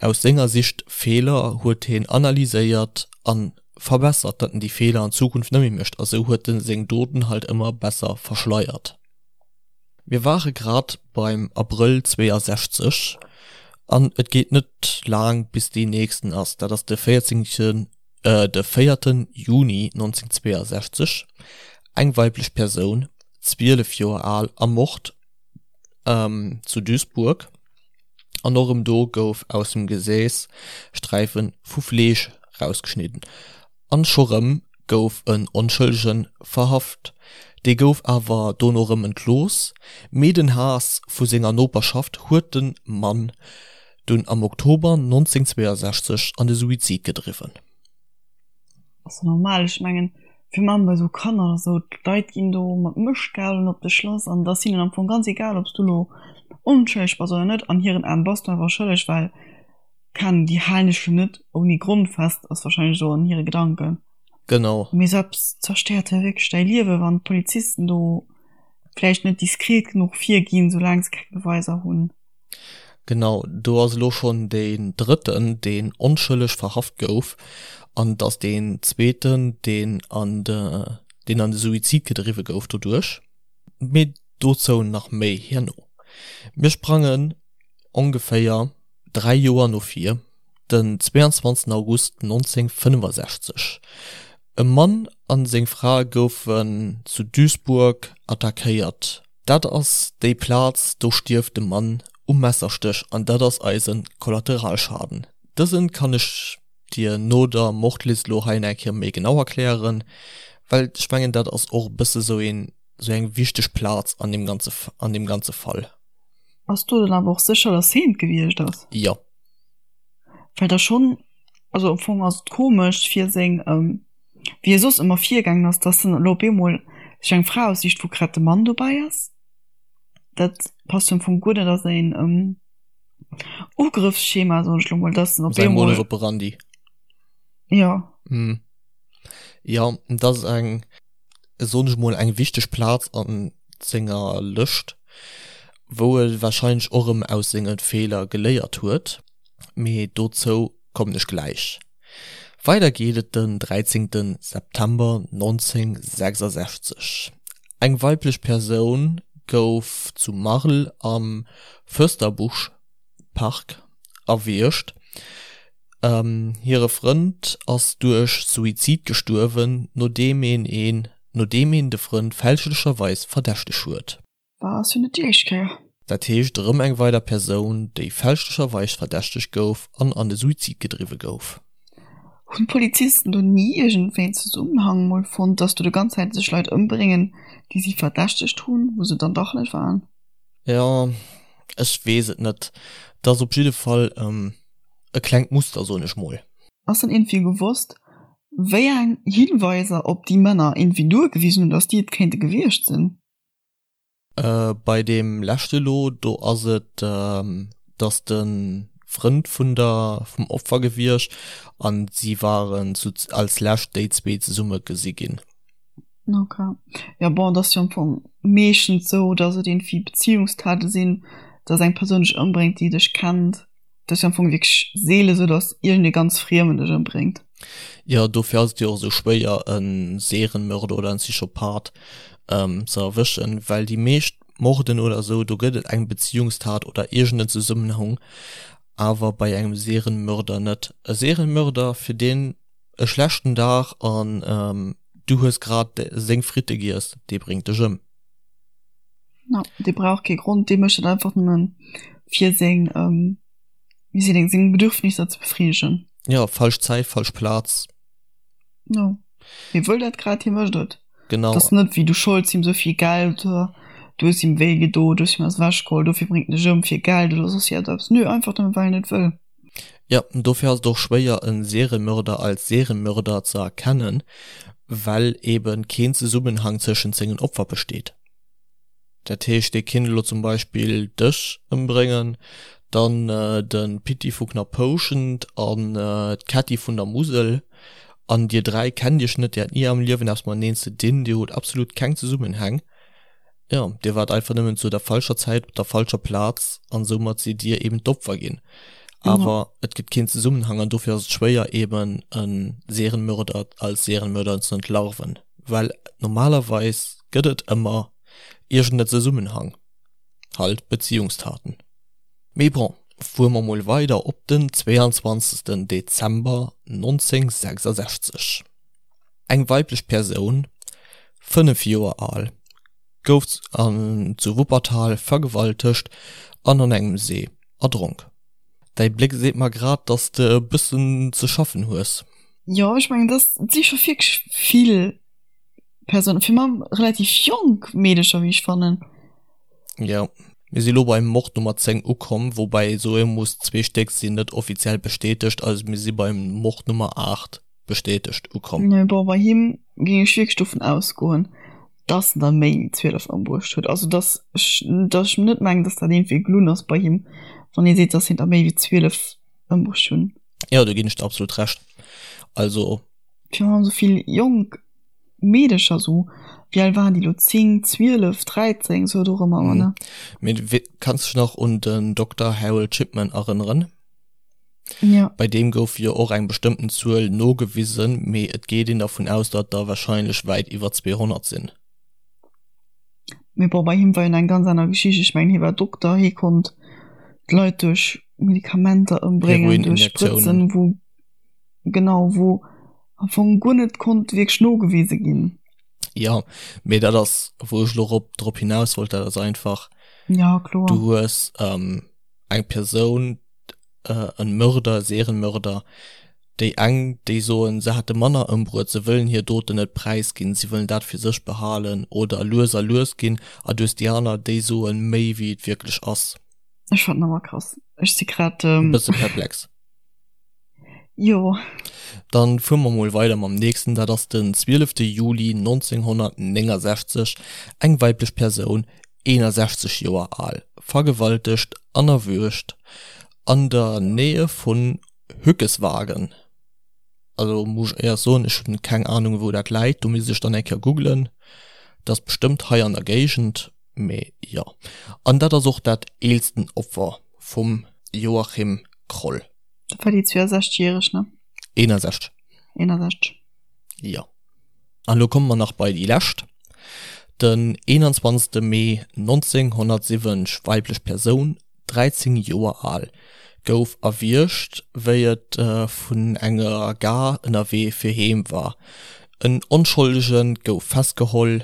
aus senger Sicht Feeler huet hien analyséiert an verbessert, datt en déi Feeler an Zukunft net méi mécht a sou huet en seng Doten halt ëmmer besser verschleiert. Mir ware grad beim Abrëll 62 an et geet net laang bis dee nächsten ass, dat ass de 14. De véierten Juni 1962, eng weiblech Persoun, 12 Joer al, ermort zu Duisburg. An och erëm do gouf aus dem Gesäß Sträife vu Fleesch rausgeschnidden. An scho rëm gouf en Onschëllege verhaft. Dee gouf awer dono rëm entlooss, mee den Haass vu senger Noperschaft huet de Mann dunn am Oktober 1962 an de Suizid gedriwwen. Ass jo normal, ech mengen virun allem bei sou Kanner oder sou, d'Leit ginn do mat Mëschtgabelen op dech lass an et ass hinnen am Fong ganz egal ob s du lo onschëlleg bass oder net, an hiren Aen bass du einfach schëlleg, well keng Ahnung, déi halen dech jo net ouni Grond fest, ass wahrscheinlech sou an hire Gedanken. Genau. Mee sou eppes zerstéiert jo wierklech däi Liewen, wann d'Polizisten do vläicht net diskret genuch virginn, soulaang se keng Beweiser hunn. Genau, do ass elo schonn deen drëtten, deen onschëlleg verhaft gouf, an et ass deen zweeten, deen an de, deen an de Suizid gedriwwe gouf doduerch. Mee dozou nach méi herno. Mir sprangen ongeféier 3 Joer no vir, den 22 August 1965. E Mann a seng Fra goufen zu Duisburg attackéiert. Dat ass déi Plaz, do stierft de Mann um Messerstéch an dat ass eise Kollateralschaden. Dësen kann ech dir no der Mordlist lo hei eng Kéier méi genau erklären, well ech mengen dat ass och e bësse sou een, sou eng wichteg Plaz an deem ganze, an deem ganze Fall. Bass du dann awer och sécher, dass heen et gewiescht ass? Jo. Well da schonn, also am Fong ass et komesch fir seng, wéi e soss ëmmer virgaangen ass, dass en elo op eemol sech eng Fra aussicht, wou grad de Mann dobäi ass. Dat passt jo am Fong guer net a säin Ugrëffsschema, soen ech elo mol, dass en op Säi Modus eemol, operandi. jo. Hm. Jo, dat ass eng, soen ech mol, eng wichteg Plaz a senger Lëscht, wou e warscheinlech och erëm aus senge Feeler geléiert huet. Mee dozou kommen ech gläich. Weider geet et den 13 September 1966. Eng weiblech Persoun gouf zu Marl am Fürsterbusch-Park erwiergt. Hire Frënd ass duerch Suizid gestuerwen, nodeem een nodeem een de Frënd fälschlecherweis verdächteg huet. War ass jo net déi éischt Kéier. Dat heescht erëm eng weider Persoun, déi fälschlecherweis verdächtegt gouf an an de Suizid gedriwwe gouf. Hunn d'Polizisten do ni iergendwéi en Zesummenhang mol fonnt, dass do de ganz Zäit sech Leit ëmbréngen, déi si verdächtegt hunn, wou se dann dach net waren? Jo, ech weess et net. Et ass op jidde Fall e klengt Muster, soen ech mol. Ass dann iergendwéi gewosst, wéi eng Hinweiser op déi Männer iergendwéi duergewisen hunn, dass déi et kéinte gewiescht sinn? Bei deem leschte lo, do ass et, dass de Frënd vun der, vum Opfer gewiescht an si waren zu, als lescht déi zwee zesumme gesi ginn. Ok. Jo bon, et ass jo am Fong meeschtens esou, dass et iergendwéi Beziehungstaten sinn. Dass eng Persoun dech ëmbréngt, déi dech kennt. Dat ass jo am Fong wierklech seele sou, dass iergendee ganz Friemen dech ëmbréngt. Jo, dofir ass et jo och esou schwéier e Serienmörder oder en Psychopath ze erwëschen, well déi meescht Morden oder esou, do gëtt et eng Beziehungstat oder iergend en Zesummenhang, awer bei engem Serienmörder net. E Serienmörder, fir deen e schlechten Dag an du hues grad seng Fritte giess, dee bréngt dech ëm. No, dee brauch kee Grond, dee mécht dat einfach nëmmen fir seng, wéi seet een, seng Bedürfnisser ze befriedegen. Jo, falsch Zäit, falsch Plaz. Jo, hie wëll dat grad, hie mécht et. Genau. Et ass net wéi du scholds him esou vill Geld, du hues him wéi gedo, du hues him eppes ewechgeholl, dofir bréngt en dech ëm fir Geld oder soss iergendeppes. Nö, einfach nëmmen well en et wëll. Jo, dofir ass et och schwéier e Seriemörder als Seriemörder ze erkennen, well eben keen Zesummenhang tëschent sengen Opfer besteet. Dat heescht, dee kinnt elo zum Beispill dech ëmbréngen, dann de Pitti vu Knapphouschent an d'Kätti vun der Musel, an dir 3 kennt iech net, dir hat ni am Liewen eppes mateneen ze dinn, dir hutt absolut keng Zesummenhäng. Jo, dir waart einfach nëmmen zu der falscher Zäit op der falscher Plaz an soumat sidd dir eben d'Opfer ginn. Awer et gëtt keen Zesummenhang an dofir ass et schwéier eben e Serienmörder als Serienmörder ze entlarven, well normalerweis gëtt et ëmmer iergend e Zesummenhang, halt Beziehungstaten. Mee bon, fuere mer mol weider op den 22 Dezember 1966. Eng weiblech Persoun, 5 Joer al, gouf zu Wuppertal vergewaltegt an an engem See erdronk. Däi Bléck seet mer grad, dass de e bëssen ze schaffen hues. Jo, ech mengen, dass et si scho wierklech vill Persounen, fir mam relativ jonk Meedecher, wéi ech fannen. Jo, mir si lo beim Mord Nummer 10 ukomm, woubäi ee soe muss, zwee Stéck sinn net offiziell bestätegt, also mir si beim Mord Nummer 8 bestätegt ukomm. Nee, bon, bei him géing ech wierklech dovun ausgoen, dass en der méi wéi 12 ëmbruecht huet. Also dass ech, dass ech net mengen, dass dat iergendwéi gelunn ass bei him, wann ee seet, dass hien der méi wéi 12 ëmbruecht hunn. Jo, do ginn ech der absolut Recht. Also. Virun allem esou vill jonk Meedecher, esou, wéi al waren déi elo, 10, 12, 13, esou dorëmmer, ne? Mee kanns dech nach un den Dokter Harold Shipman erënneren? Ja. Bei deem gouf jo och eng bestëmmten Zuel nogewisen, mee et geet een dervun aus, datt der warscheinlech wäit iwwer 200 sinn. Mee bon, bei him war jo nach eng ganz aner Geschicht. Ech mengen, hie war Dokter, hie konnt d'Leit duerch Medikamenter ëmbréngen, duerch Sprëtzen, wou, genau, wou am Fong guer net konnt wierklech nogewise ginn. Jo, mee dat ass, wou ech elo rop, drop hinaus wollt, dat ass einfach, Ja, kloer. du hues eng Persoun, en Mörder, Serienmörder, déi eng déi soen se hätte manner ëmbruet, se wëllen hir Doten net präisginn, si wëllen dat fir sech behalen oder lues a lues ginn, a du hues déi aner déi soen méi wéi et wierklech ass. Ech fannen awer krass, ech si grad e bësse perplex. Jo. Dann fuere mer mol weider mam nächsten, dat ass den 12 Juli 1969, eng weiblech Persoun, 61 Joer al, vergewaltegt an erwürgt an der Nähe vun Hückeswagen. Also muss ech éiers soen, ech hunn keng Ahnung wou dat läit, do misst ech dann eng Kéier googlen. Dat ass bestëmmt hei an der Géigend, mee jo. An dat ass och dat eelsten Opfer vum Joachim Kroll. Dat war déi 62 järeg, ne? 61. 61. Jo. An elo komme mer nach bei déi lescht. Den 21. Mee 1970, weiblech Persoun, 13 Joer al, gouf erwiergt, wéi et vun enger Gare ënnerwee fir heem war. En Onscholdige gouf festgeholl.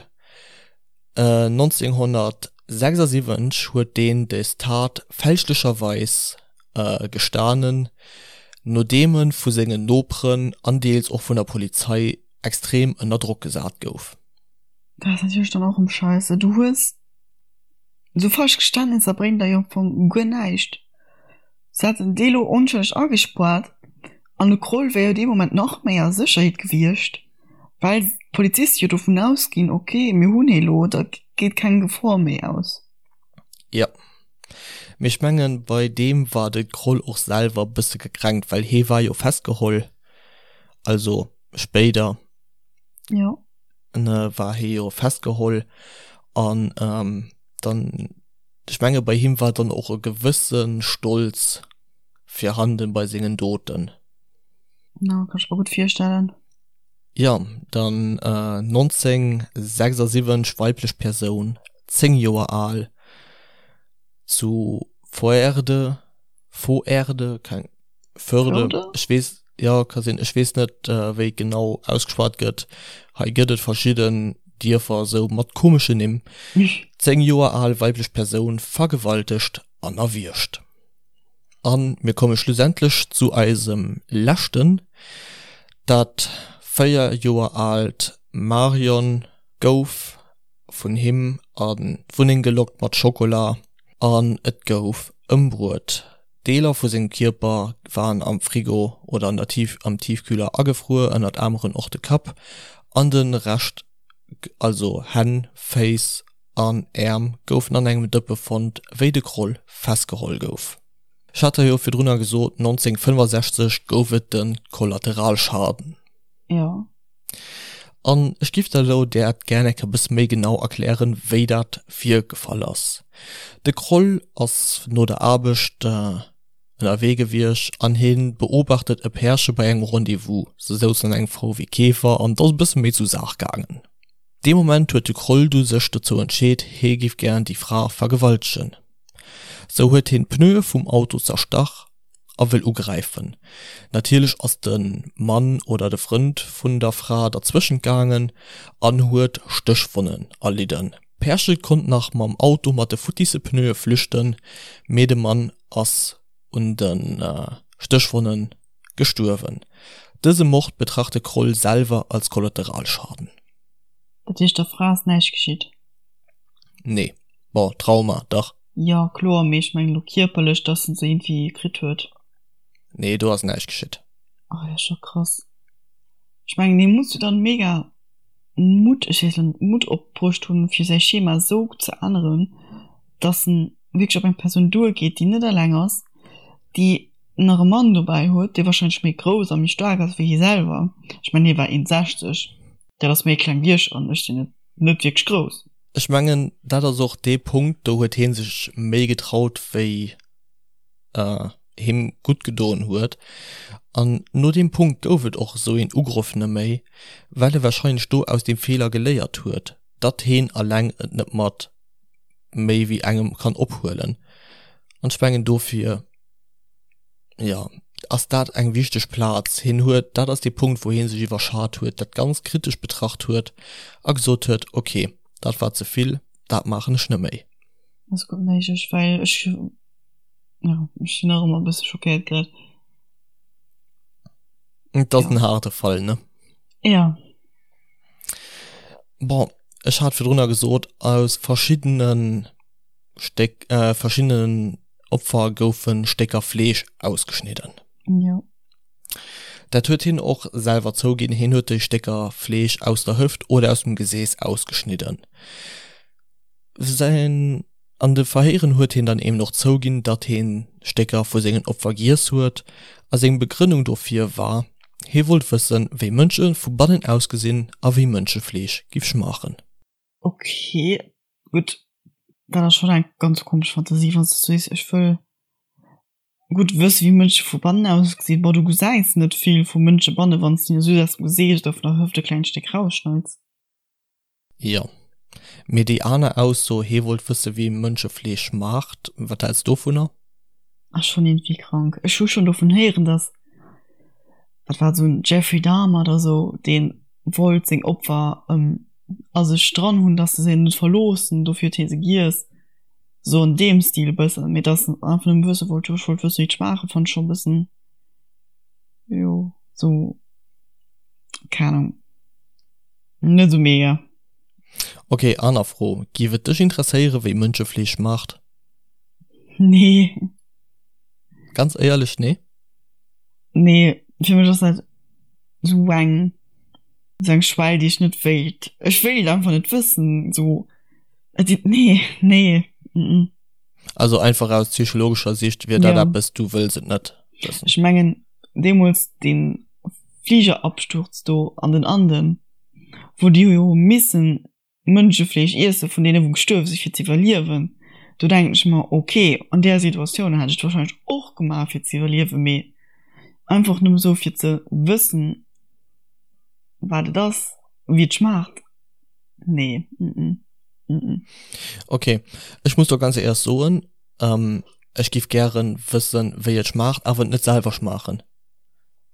1976 huet deen des Tat fälschlecherweis gestanen, nodeem e vu sengen Noperen an deels och vun der Polizei extrem ënner Drock gesat gouf. Dat ass natierlech dann och erëm scheisse. Du hues esou falsch Geständnisser bréngen der jo am Fong guer näischt. Se hätten dee lo onschëlleg agespuart an de Kroll wär jo dee Moment nach méi a Sécherheet gewiescht, well d'Poliziste jo dovun ausginn, ok mir hunn hee lo, da geet keng Gefor méi aus. Jo, mee ech mengen bei deem war de Kroll och selwer bësse gekränkt, well hee war jo festgeholl, also spéider Jo. war hee jo festgeholl an dann. Ech menge bei him war dann och e gewësse Stolz virhanden bei sengen Doten. Ja, kann ech mer gutt virstellen. Jo, dann 1976, weiblech Persoun, 10 Joer al, zu Voerde, Voerde, keng, Förde, ech weess, jo, ka sinn, ech weess net, wéi et genau ausgeschwat gëtt. Hei gëtt et verschidden Dierfer esou mat komeschen Nimm. 10 Joer al, weiblech Persoun, vergewaltegt an erwiergt. An mir komme schlussendlech zu eisem leschten, dat 4 Joer aalt Marion gouf vun him an d'Wunneng gelockt mat Schokola an et gouf ëmbruet. Deeler vu sengem Kierper waren am Frigo oder an der Tief am Tiefkühler agefruer, ënnert aneren och de Kapp an de Rescht, also Hänn, Féiss an Äerm goufen an engem Dëppe fonnt, wéi de Kroll festgeholl gouf. Ech hat der jo virdrunner gesot, 1965 gouf et de Kollateralschaden. Jo. An ech giff der elo dat gär eng Kéier e bësse méi genau erklären, wéi dat virgefall ass. De Kroll ass no der Aarbecht ënnerwee gewiescht an hie beobachtet e Pärche bei engem Rendez-vous. Se souzen an engem VW Käfer an et ass e bësse méi zu Saach gaangen. Dee Moment huet de Kroll du sech dozou entscheet, hie giff gären déi Fra vergewaltegen. Sou huet hien d'Pneue vum Auto zerstach a wëll ugräifen. Natierlech ass de Mann oder de Frënd vun der Fra derzwëschent gaangen an huet Stéchwonnen erlidden. D'Pärche konnt nach mam Auto mat de futtisse Pneue flüchten, mee de Mann ass un de Stéchwonne gestuerwen. Dëse Mord betracht de Kroll selwer als Kollateralschaden. Dat heescht der Fra ass näischt geschitt? Nee. Bon, Trauma, dach. Jo, kloer, mee ech mengen elo kierperlech, dass en se iergendwéi kritt huet. Nee, do ass näischt geschitt. Oh, dat ass scho krass. Ech mengen, hie muss jo dann mega Mutt, ech weess elo net, Mutt opbruecht hunn, fir säi Schema esou ze änneren, dass en wierklech op eng Persoun duergeet, déi net eleng ass, déi nach e Mann dobäi huet, dee warscheinlech méi grouss a méi staark ass wéi hie selwer. Ech mengen, hie war 1,60, dat ass méi kleng wéi ech an ech sinn net, net wierklech grouss. Ech mengen, dat ass och dee Punkt, do huet hie sech méi getraut, wéi him gutt gedoen huet. An no deem Punkt gouf et och esou een Ugrëff neméi, well e warscheinlech do aus deem Feeler geléiert huet, datt heen alleng et net mat méi wéi engem kann ophuelen. An ech mengen dofir, jo, ass dat eng wichteg Plaz. Hien huet, dat ass dee Punkt, wou hie sech iwwerschat huet, dat ganz kritesch betracht huet a gesot huet, ok, dat war ze vill, dat maachen ech net méi. Ass gutt méiglech, well ech, jo, ech sinn nach ëmmer e bësse schockéiert grad. Et ass en haarde Fall, ne? Jo. Bon, ech hat virdrunner gesot, aus verschiddene Stéck, verschiddenen Opfer goufe Stécker Fleesch ausgeschnidden. Jo. Dat huet hien och selwer zouginn, hien huet déi Stécker Fleesch aus der Hëft oder aus dem Gesees ausgeschnidden. Säin, an de Verhéieren huet hien dann eben och zouginn, datt hien Stécker vu sengen Opfer giess huet, a seng Begrënnung dofir war, hie wollt wëssen, wéi Mënsche vu bannen ausgesinn a wéi Mënschefleesch giff schmaachen. Ok, gutt, dat ass schonn eng ganz komesch Fantasie, wann s de sees, ech wëll gutt wësse wéi Mënsche vu bannen ausgesinn. Bon, du gesäis net vill vu Mënsche banne wann s de just aus dem Gesiicht oder vun der Hëft e klengt Stéck rausschneits. Jo, mee déi aner Ausso, hee wollt wësse wéi Mënschefleesch schmaacht, wat häls dovunner? Ass schonn iergendwéi krank. Ech hu schonn dovun héieren, dass, wat war et, esou en Jeffrey Dahmer oder esou, dee wollt seng Opfer a sech dran hunn, dass se se net verloossen, dofir huet hie se giess, esou an deem Stil e bëssen. Mee dass en einfach nëmme wësse wollt, jo ech wollt wësse wéi et schmaache, fannt ech schonn e bëssen, jo, esou, keng Ahnung, net esou mega. Ok, aner Fro, Giff et dech interesséieren, wéi Mënschefleesch schmaacht? Nee. Ganz éierlech, nee? Nee, fir mech ass dat esou eng, esou eng Schwell, déi ech net wéilt, ech wéilt einfach net wëssen, esou, et, nee, nee, mm. Also einfach aus psychologescher Sicht wier dat eppes, du wëlls et net wëssen? Ech mengen, deemools dee Fligerabsturz do an den Anden, wou déi jo hu missen Mënschefleesch iesse vun deene wou gestuerwe si fir ze iwwerliewen. Do denken ech mer, ok, an där Situatioun hätt ech et warscheinlech och gemaach fir ze iwwerliewen, mee einfach nëmme sou fir ze wëssen, wat et ass, wéi et schmaacht, nee, mm mm. Ok, ech muss do ganz éierlech soen, ech giff gären wëssen, wéi et schmaacht, awer et net selwer schmaachen.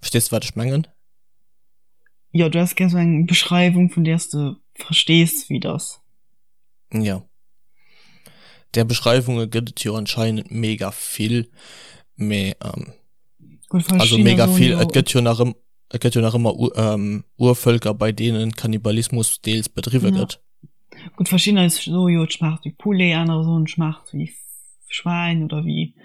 Verstees de wat ech mengen? Jo, du häss gär sou eng Beschreiwung, vun där s de verstees, wéi et ass. Jo. Där Beschreiwunge gëtt et jo anscheinend mega vill, mee ähm, Gut, also verschiddener mega soen vill, jo et gëtt jo nach ëm, et gëtt jo nach ëmmer U ähm, Urvëlker, bei deenen Kannibalismus deels bedriwwe Ja. gëtt. Gutt, verschiddener soe jo, et schmaacht wéi Poulet, anerer soen, et schmaacht wéi Schwäin oder wéi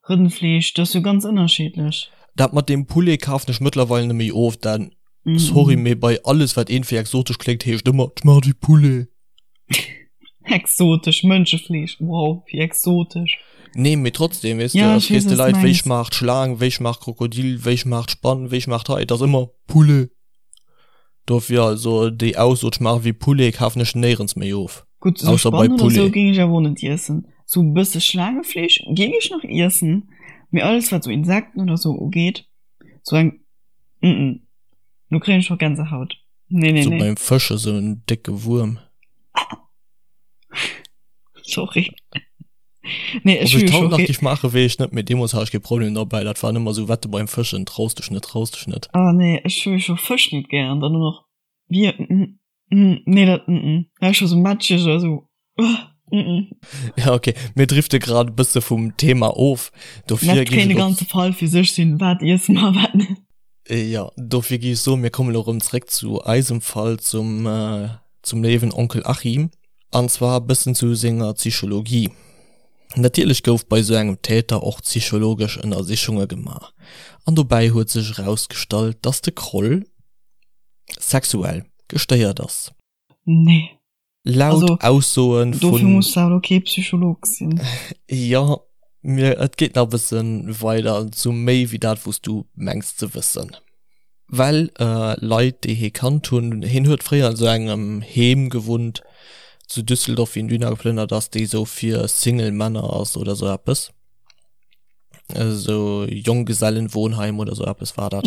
Rëndfleesch. Dat ass jo ganz ënnerschiddlech. Dat mat deem Poulet kafen ech mëttlerweil net méi of, denn, sorry, mee bei alles wat iergendwéi exotesch kléngt, heescht ëmmer, et schmaacht wéi Poulet. Exotesch Mënschefleesch, wow, wéi exotesch. Nee, mee trotzdem, weess de, Ja, ech frees weess, de wat s Leit, wéi mengs. schmaacht Schlaang, wéi schmaacht Krokodil, wéi schmaacht Spann, wéi schmaacht hei, et ass ëmmer Poulet. Dofir also déi Ausso, et schmaacht wéi Poulet, kafen ech néierens méi of, Gutt, esou ausser bei Spann oder esou Poulet. géing ech awer och net iessen. Sou e bësse Schlaangefleesch géing ech nach iessen, mee alles wat sou Insekten oder sou ugeet, sou eng, mm, do kréien ech scho Gänsehaut. Nee, nee, Sou nee. beim Fësche sou en décke Wuerm. Sorry. Nee, Ob ech ech hu haut jo nach scho. géif maachen, weess ech net, mee deemools hat ech kee Problem derbäi. Dat war ëmmer sou Wette beim Fëschen, traus dech net, traus dech net. Ah nee, ech hu jo scho Fësch net gären, dann och nach Wier, mm, mm, nee, dat, mm, mm. Da hu ech scho sou matscheg oder sou, uh, mm, mm. Ja, okay, mir drifte grad e bësse vum Thema of. Dofir Dat géif kéint ech e och, ganze Fall fir sech sinn, wat iesse mer a wat net. jo, dofir géif ech soen, mir kommen elo erëm zréck zu eisem Fall, zum, zum léiwen Onkel Achim. An zwar e bëssen zu senger Psychologie. Natierlech gouf bei sou engem Täter och psychologesch Ënnersichunge gemaach. An dobäi huet sech erausgestallt, dass de Kroll sexuell gestéiert ass. Nee. Laut Also, Aussoe dofir vun. muss de awer kee Psycholog sinn. Jo, mir, et geet nach e bësse weider zu méi wéi dat, wou s du mengs ze wëssen. Well Leit, déi hie kannt hunn, hien huet fréier an esou engem Heem gewunnt zu Düsseldorf, wéi en dohinner geplënnert ass, déi esou fir Single Männer ass oder esou eppes, esou Jonggesellenwohnheim oder esou eppes war dat.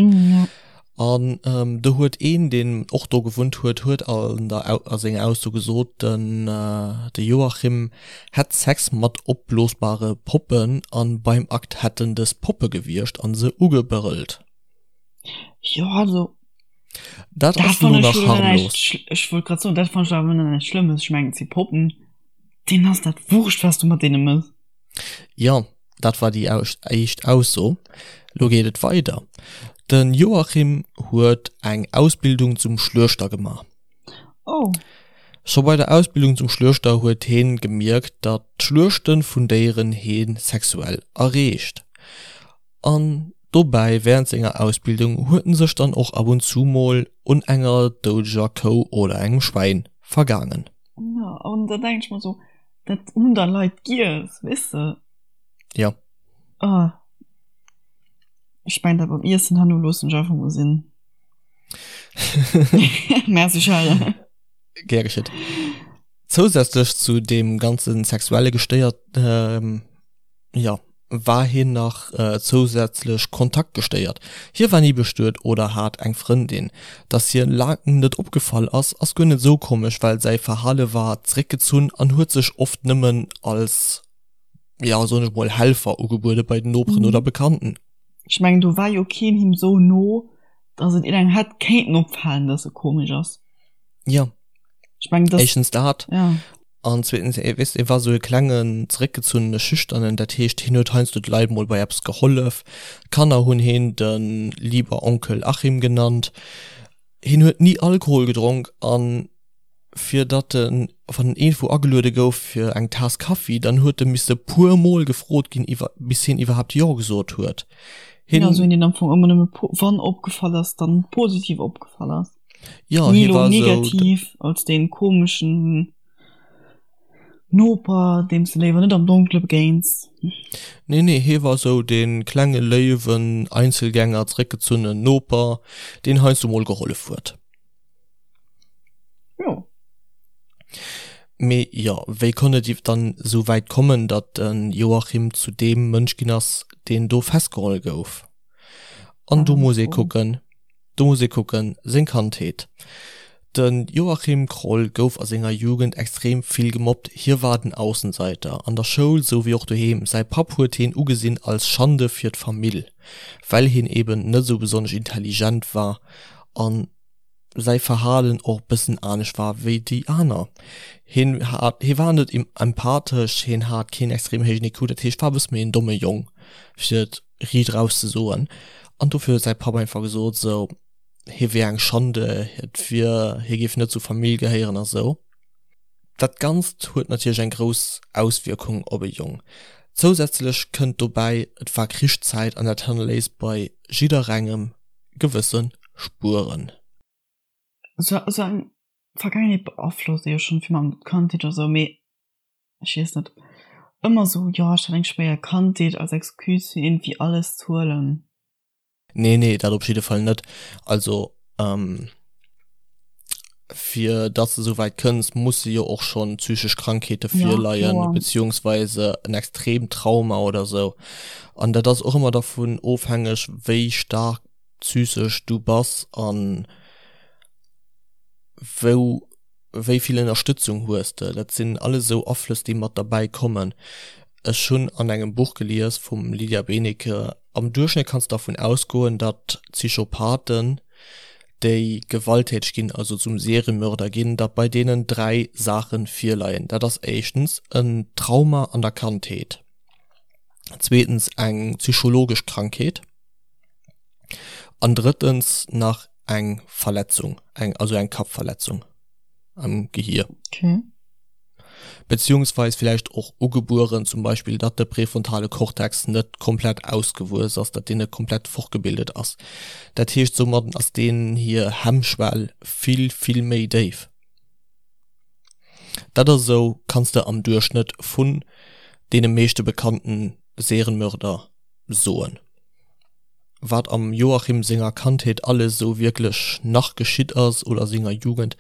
An do huet een, deen och do gewunnt huet, huet an der a senger Ausso gesot, den de Joachim hätt Sex mat opblosbare Poppen an beim Akt hätten dës Poppe gewiergt an se ugebrëllt. Jo, also Dat dat ass elo fann ech nach jo dann harmlos. näischt, ech wollt grad soen, dat fann ech awer nach näischt Schlëmmes. Ech mengen, et si Poppen, deenen ass dat wurscht, wat s du mat deene mëss. Jo, dat war déi éischt Ausso. Lo geet et weider. De Joachim huet eng Ausbildung zum Schluechter gemaach. Oh. Scho bei der Ausbildung zum Schluechter huet heen gemierkt, datt d'Schluechte vun Déieren hee sexuell erreegt. An dobäi während senger Ausbildung huet en sech dann och ab und zu mol un enger doudeger Kou oder engem Schwäin vergaangen. Jo, an da denk ech mer sou, dat hunn da Leit giess, weess de? Jo. Oh. Ech mengen dat mam Iessen herno loossen ech einfach mol sinn. Merci Charles. Gär geschitt. Zousätzlech zu deem ganze sexuelle Gestéiert, jo, war hien nach zousätzlech kontaktgestéiert. Hie war ni bestuet oder hat eng Frëndin. Dass hie laang net opgefall ass, ass guer net esou komesch, well säi Verhale war zeréckgezunn an huet sech oft nëmmen als, jo, soen ech mol, Helfer ugebuede bei den Noperen oder Bekannten. Ech mengen, do war jo keen him esou no, dass et iergendengem hätt kéinten opfalen, dass e komesch ass. Jo, Ech mengen, dass. éischtens dat. Ja. An zweetens, e weess, e war sou e klengen, zeréckgezunnene Schüchternen, dat heescht, hien huet heiansdo de Leit mol bei eppes gehollef. D'Kanner hunn hien de lieber Onkel Achim genannt. Hien huet ni Alkohol gedronk an fir datt en, wann en iergendwou ageluede gouf fir eng Taass Kaffi, dann huet e misse puer mol gefrot ginn, iwwer, bis hien iwwerhaapt Jo gesot huet. Hien. Ja, sou een, deen am Fong ëmmer nëmme po-, wann opgefall ass, dann positiv opgefall ass. Ja, Ni hie lo war sou. negativ als dee komeschen Noper, deem s de léiwer net am Donkele begéins. Nee, nee, hie war sou dee klenge léiwen Einzelgänger, zeréckgezunnen Noper, deen heiansdo mol gehollef huet. Jo. Mee jo, wéi konnt et dann esou wäit kommen, datt de Joachim zu deem Mënsch ginn ass, deen do festgeholl gouf? An do muss ee kucken, do muss ee kucken, seng Kandheet. De Joachim Kroll gouf a senger Jugend extrem vill gemobbt, hie war den Aussenseiter, an der Schoul sou wéi och doheem. Säi Papp huet hien ugesinn als Schande fir d'Famill, well hien eben net esou besonnesch intelligent war an säi Verhalen och bëssen anescht war wéi déi aner. Hien hat, hie war net empathesch, hien hat keen extrem héijen IQ, dat heescht war e bësse méi en domme Jong, fir et riicht eraus ze soen. An dofir huet säi Papp einfach gesot esou, hie wier eng Schande, et wier, hie géif net zur Famill gehéieren a sou. Dat Ganzt huet natierlech eng grouss Auswierkung op e Jong. Zousätzlech kënnt dobäi, et war Krichszäit an dat hannerléisst bei jidderengem gewësse Spueren. Sou eng Vergaangenheet beaflosst ee jo schonn vill mam Kandheet oder sou, mee ech weess net, ëmmer sou, jo ech hat eng schwéier Kandheet als Excuse fir iergendwéi alles ze huelen. Nee, nee, dat op jidde Fall net. Also fir datt s de esou wäit kënns, musse jo och schonn psychesch Krankheete virleien, beziehungsweise en extreemt Trauma oder sou. An dat ass och ëmmer dervun ofhängeg, wéi staark psychesch du bass an wou, wéi vill Ënnerstëtzung hues de. Dat sinn alles esou Aflëss, déi mat derbäi kommen. Ech hunn an engem Buch gelies vum Lydia Benecke, am Duerchschnëtt kanns de dervun ausgoen, datt Psychopathen, déi gewalttäteg ginn, also zum Seriemörder ginn, datt bei deenen 3 Saache virleien. Dat ass éischtens en Trauma an der Kandheet, zweetens eng psychologesch Krankheet an drëttens nach eng Verletzung, eng also eng Kappverletzung am Gehier. Okay. Beziehungsweis villäicht och ugebueren, zum Beispill datt de präfrontale Kortex net komplett ausgewuess ass, datt deen net komplett fortgebildet ass. Dat heescht, soumadden ass deenen hir Hemmschwell vill, vill méi déif. Dat ass esou, kanns de am Duerchschnëtt vun deene meeschte bekannten Serienmörder soen. Wat am Joachim senger Kandheet alles esou wierklech nach geschitt ass oder senger Jugend,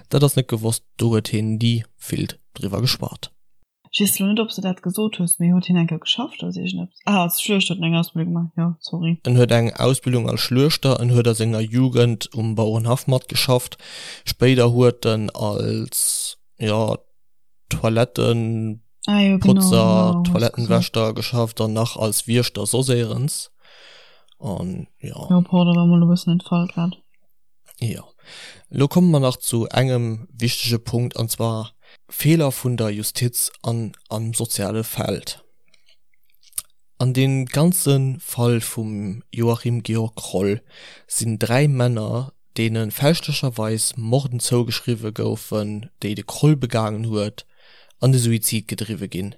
dat ass net gewosst, do huet hien ni vill driwwer geschwat. Ech weess elo net ob s de dat gesot hues, mee huet hien eng Kéier geschafft als iergendeppes? Ah, als Schluechter huet en eng Ausbildung gemaach, jo, sorry. En huet eng Ausbildung als Schluechter, en huet a senger Jugend um Bauerenhaff matgeschafft, spéider huet en als, jo, Toilettenputzer, ah, jo, genau, genau, Toilettenwäschter geschafft an nach als Wiechter soss éierens. An ja. Ja, pardon, war mol e bëssen entfall grad. Ja. Lo komme mer nach zu engem wichtege Punkt, an zwar Feeler vun der Justiz an am soziale Feld. An deem ganze Fall vum Joachim Georg Kroll sinn 3 Männer, deene fälschlecherweis Morden zougeschriwwe goufen, déi de Kroll begaangen huet, an de Suizid gedriwwe ginn.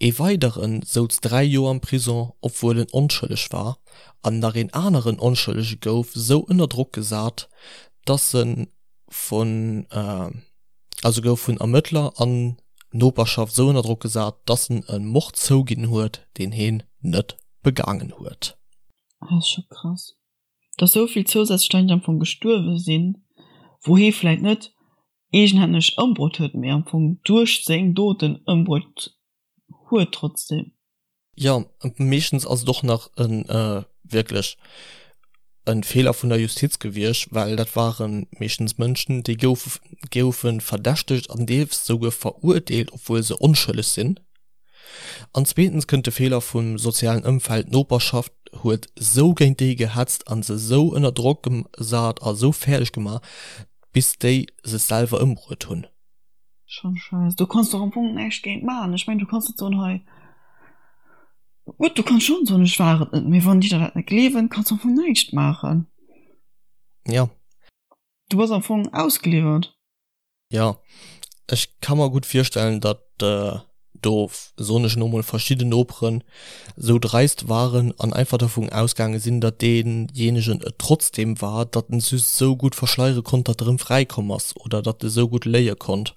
Ee weidere souz 3 Joer am Prison, obwuel en onschëlleg war, an nach een aneren Onschëllege gouf sou ënner Drock gesat, dass e vun. Also gouf vun Ermëttler an Noperschaft sou ënner Drock gesat, dass en e Mord zouginn huet, deen heen net begaangen huet. Dat ass scho krass, dass sou vill zousätzlech Leit am Fong gestuerwe sinn, wou hee vläit net eegenhänneg ëmbruet huet, mee am Fong duerch seng Doten ëmbruet huet trotzdem. Jo, meeschtens ass et och nach e wierklech e Feeler vun der Justiz gewiescht, well dat ware meeschtens Mënschen, déi goufe goufe verdächtegt an deels souguer verurteelt, obwuel se onschëlleg sinn. An zweetens kënnt de Feeler vum sozialen Ëmfeld, d'Noperschaft huet sou géint déi gehetzt a se sou ënner Drock gesat a sou fäerdeg gemaach, bis déi sech selwer ëmbruet hunn. Schon scheiss. Du kanns doch am Fong näischt géint maachen. Ech mengen, du kanns net soen, hei, gutt, du kanns schon soen, ech war et net, mee wann déi der dat net gleewen, kanns du am Fong näischt maachen. Ja. Du bass am Fong ausgeliwwert. Ja, ech ka mer gutt virstellen, datt do, soen ech elo mol, verschidden Noperen esou dreist waren an einfach dervun ausgaange sinn, datt deejéinegen et trotzdeem war, datt en just esou gutt verschleiere konnt, datt e rëm fräikomm ass oder datt e sou gutt léie konnt.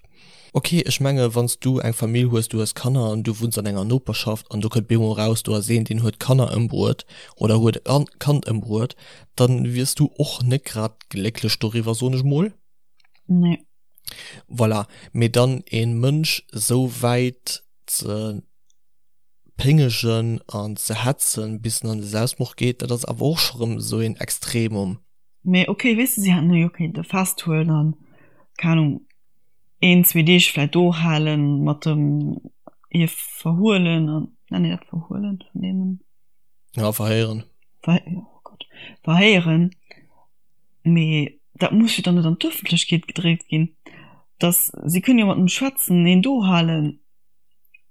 Ok, ech menge wann s du eng Famill hues, du hues Kanner an du wunns an enger Noperschaft an do kënnt bemol eraus, do ass een, deen huet Kanner ëmbruet oder huet e Kand ëmbruet, da wiers du och net grad glécklech doriwwer, soen ech mol. Nee. Voilà, mee dann een Mënsch esou wäit ze péngegen an ze hetzen bis en an de Selbstmord geet, dat ass awer och scho rëm esou een Extremum. Mee ok, weess de, si hätten e jo kéinte festhuelen an, keng Ahnung, een, zwee Deeg vläit do halen, mat dem hie verhuelen an, nennt een dat verhuelen, vernehmen? Ja, verhéieren. Ver, oh Gott, verhéieren. Mee dat muss jo dann net an d'Ëffentlechkeet gedréckt ginn, dass, si kënnen jo mat em schwätzen, een do halen,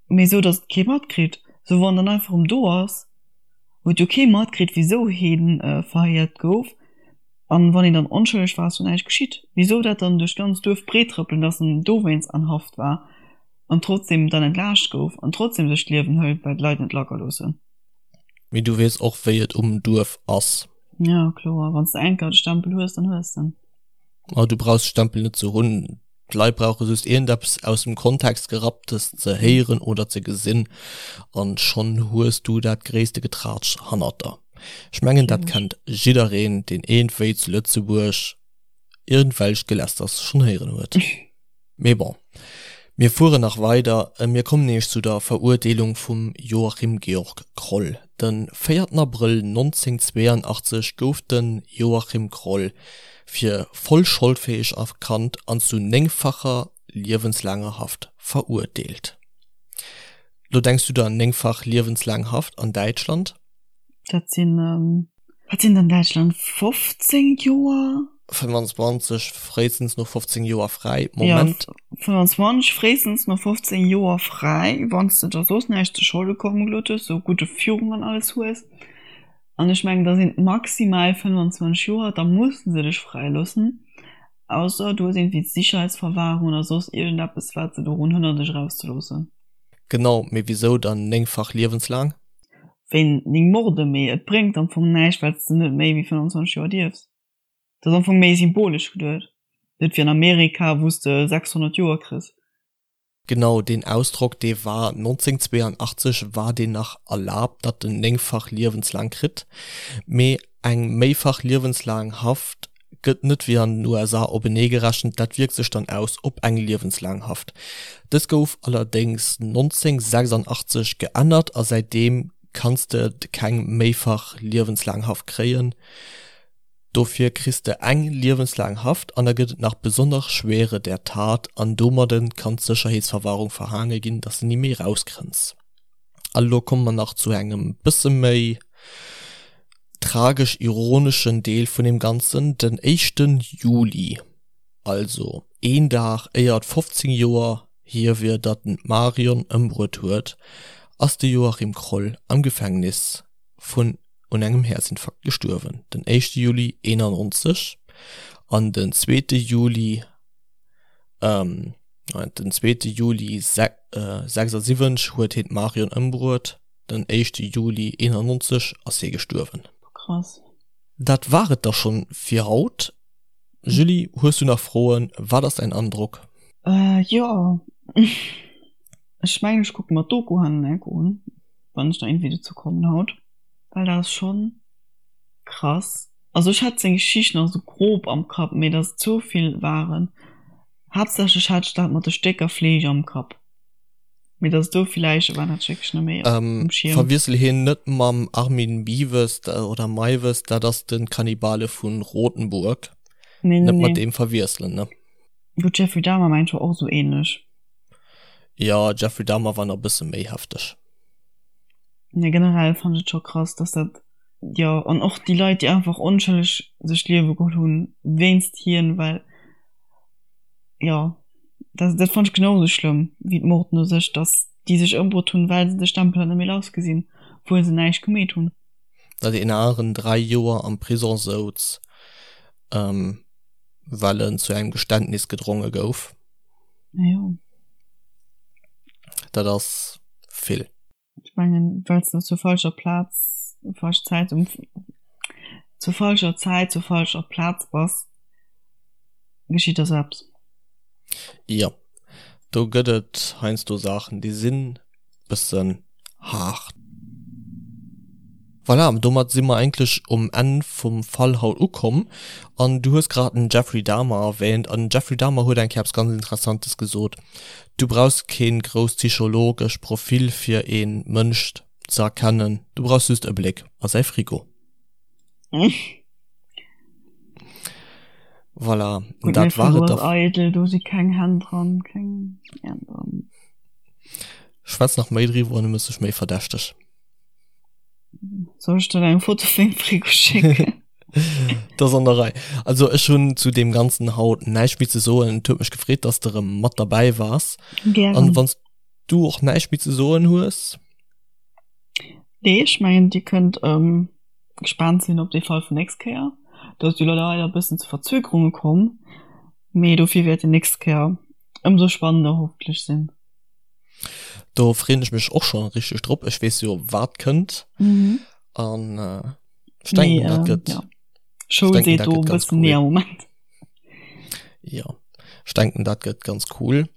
mee esou, dass et kee matkritt. Esou wann dann einfach erëm do ass, huet jo kee matkritt, wisou hie verhéiert gouf. An wann een dann onschëlleg war, ass jo näischt geschitt. Wisou dat dann duerch d'ganz Duerf breet trëppelen, dass en dowéinst an Haft war an trotzdem dann entlaascht gouf an trotzdem sech d'Liewen hëlt, well d'Leit net lacker loossen. Mee du weess och wéi et um Duerf ass. Ja kloer, wann s de enker de Stempel hues, dann hues de en. Ma du brauchs de Stempel net ze hunn, d'Leit brauche just iergendeppes aus dem Kontext gerapptes ze héieren oder ze gesinn an schonn hues du dat gréisste Getraatsch hannert der. Ech mengen dat kennt jiddereen deen iergendwéi zu Lëtzebuerg iergendwelcht Gelästers schonn héieren huet. Mee bon, mir fueren nach weider. Mir kommen nämlech zu der Verurteelung vum Joachim Georg Kroll. De véierten Abrëll 1982 gouf de Joachim Kroll fir voll scholdfäeg erkannt an zu néngfacher liewenslaanger Haft verurteelt. Lo denks du der, néngfach liewenslaang Haft an Däitschland? Dat sinn, wat sinn et an Däitschland, 15 Joer? 25, fréistens no 15 Joer fräi, Moment. Jo, 25, fréistens no 15 Joer fräi, wann s de der soss näischt zu Scholde komme gelooss hues, sou gudde Führung an alles hues. An ech mengen, da sinn et maximal 25 Joer, da musse se dech fräiloossen, ausser du hues iergendwéi d'Sicherheitsverwahrung oder soss iergendeppes, wat se dorun hënnert, dech erauszeloossen. Genau, mee wisou dann néngfach liewenslaang? Wéi 9 Morde, mee et bréngt am Fong näischt, well s de net méi wéi 25 Joer dierfs. Dat ass am Fong méi symbolesch geduet, net wéi an Amerika, wou s de 600 Joer kriss. Genau, deen Ausdrock, dee war 1982 war deen nach erlaabt, datt en néngfach liewenslaang kritt, mee eng méifach liewenslaang Haft gëtt net wéi an den USA openee gerechent, dat wierkt sech dann aus op eng liewenslaang Haft. Dës gouf allerdéngs 1986 geännert a säitdeem kanns de keng méifach liewenslaang Haft kréien. Dofir kriss de eng liewenslaang Haft an da gëtt et nach besonner Schwere der Tat an domadde kann d'Sécherheetsverwahrung verhaange ginn, dass de ni méi rauskënns. A lo komme mer nach zu engem bësse méi tragesch-ironeschen Deel vun deem Ganzen, Den éischten Juli, also een Dag éier et 15 Joer hier wier, datt en d'Marion ëmbruet huet, ass de Joachim Kroll am Gefängnis vun un engem Häerzinfarkt gestuerwen. Den éischte Juli 91 an den zweete Juli den zweete Juli 76 huet hien d'Marion ëmbruet. Den éischte Juli 91 ass hie gestuerwen. Krass. Dat war et da schonn fir haut. Julie, hues du nach Froen? Wat ass däin Androck? Jo, ech mengen ech kucke mer d'Doku hannen enk un, wann ech da iergendwéi dozou kommen haut, well dat ass schonn krass. Also ech hat seng Geschicht nach sou grob am Kapp, mee dass et sou vill waren, haaptsächlech hat ech dat mat de Stécker Fleesch am Kapp. Mee dass et esou vill Läiche waren, hat ech wierklech net méi um Schierm. Verwiessel hien net mam Armin Meiwes oder Meiwes, dat ass de Kannibale vu Rotenburg. Nee, nee, Net mat deem verwiesselen, ne? Gutt, Jeffrey Dahmer mengt war och esou ähnlech. Jo, Jeffrey Dahmer war nach e bësse méi hefteg. Nee, generell fannen ech et scho krass, dass dat, jo, an och déi Leit, déi einfach onschëlleg sech d'Liewe geholl hunn wéinst hien, well, jo. Dat, dat fand ech genau sou schlëmm wéi d'Morden u sech, dass déi sech ëmbruet hunn, well se de Stempel net méi lass gesinn, obwuel se näischt gemeet hunn. Datt een aneren 3 Joer am Prison souz, well en zu engem Geständnis gedronge gouf. Jo. Dat ass vill. Ech mengen, well s de zur falscher Plaz, falsch Zäit um, zur falscher Zäit zur falscher Plaz bass, geschitt der sou eppes. Jo, do gëtt et heiansdo Saachen, déi sinn bëssen haart. Voilà, domat si mer eigentlech um Enn vum Fall haut ukomm. An du hues grad den Jeffrey Dahmer erwähnt an den Jeffrey Dahmer huet eng Kéier eppes ganz Interessantes gesot, Du brauchs keen grousst psychologesch Profil fir een Mënsch ze erkennen, du brauchs just e Bléck a säi Frigo. Voilà, Gutt, dat mäi war Frigo et ass da. eidel, do si keng Hänn dran, keng Äerm dran. Schwätz nach méi driwwer an du mëss dech méi verdächteg. Soll ech der eng Foto vun mengem Frigo schécken? Dat ass an der Rei. Also ech hunn zu deem Ganzen haut näischt méi ze soen. Et huet mech gefreet, dass de erëm mat derbäi waars. Gären. An wann s du och näischt méi ze soen hues? Nee, ech mengen dir kënnt ähm, gespaant sinn op dee Fall vun nächst Kéier. Do ass jo leider e bëssen zu Verzögerunge komm, mee dofir wäert en nächst Kéier ëmsou spannender hoffentlech sinn. Do freen ech mech och schon richteg drop. Ech wees jo wat kënnt mhm. an äh, ech denken nee, dat äh, gëtt ja. Show denken, seet dat do gëtt ganz bëssen nee cool. am Moment. Ja ech denken dat gëtt ganz cool. Ja,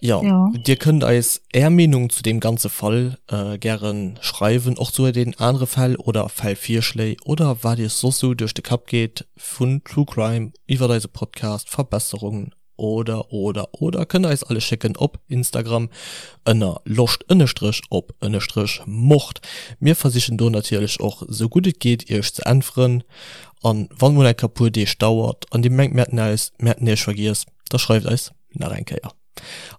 Ja. Dir kënnt eis är Meenung zu deem ganze Fall äh, gären schreiwen, och zu den anere Fäll oder Fällvirschléi oder wat iech soss sou duerch de Kapp geet vun True Crime iwwert eise Podcast, Verbesserungen Oder oder oder kënnt eis alles schécken op Instagram ënner loscht ënnestrech op ënnestrech mord. Mir versichen do natierlech och sou gutt et geet iech ze äntweren an wann mol eng Kéier puer Deeg dauert an dir mengt mir hätten eis mir hätten iech vergiess, da schreift eis nach eng Kéier.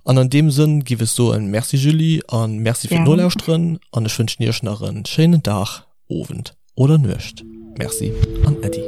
An an deem Sënn giff ech soen Merci Julie an Merci fir Gären. d'Nolauschteren an ech wënschen iech nach en schéinen Dag, Owend oder Nuecht. Merci an Äddi.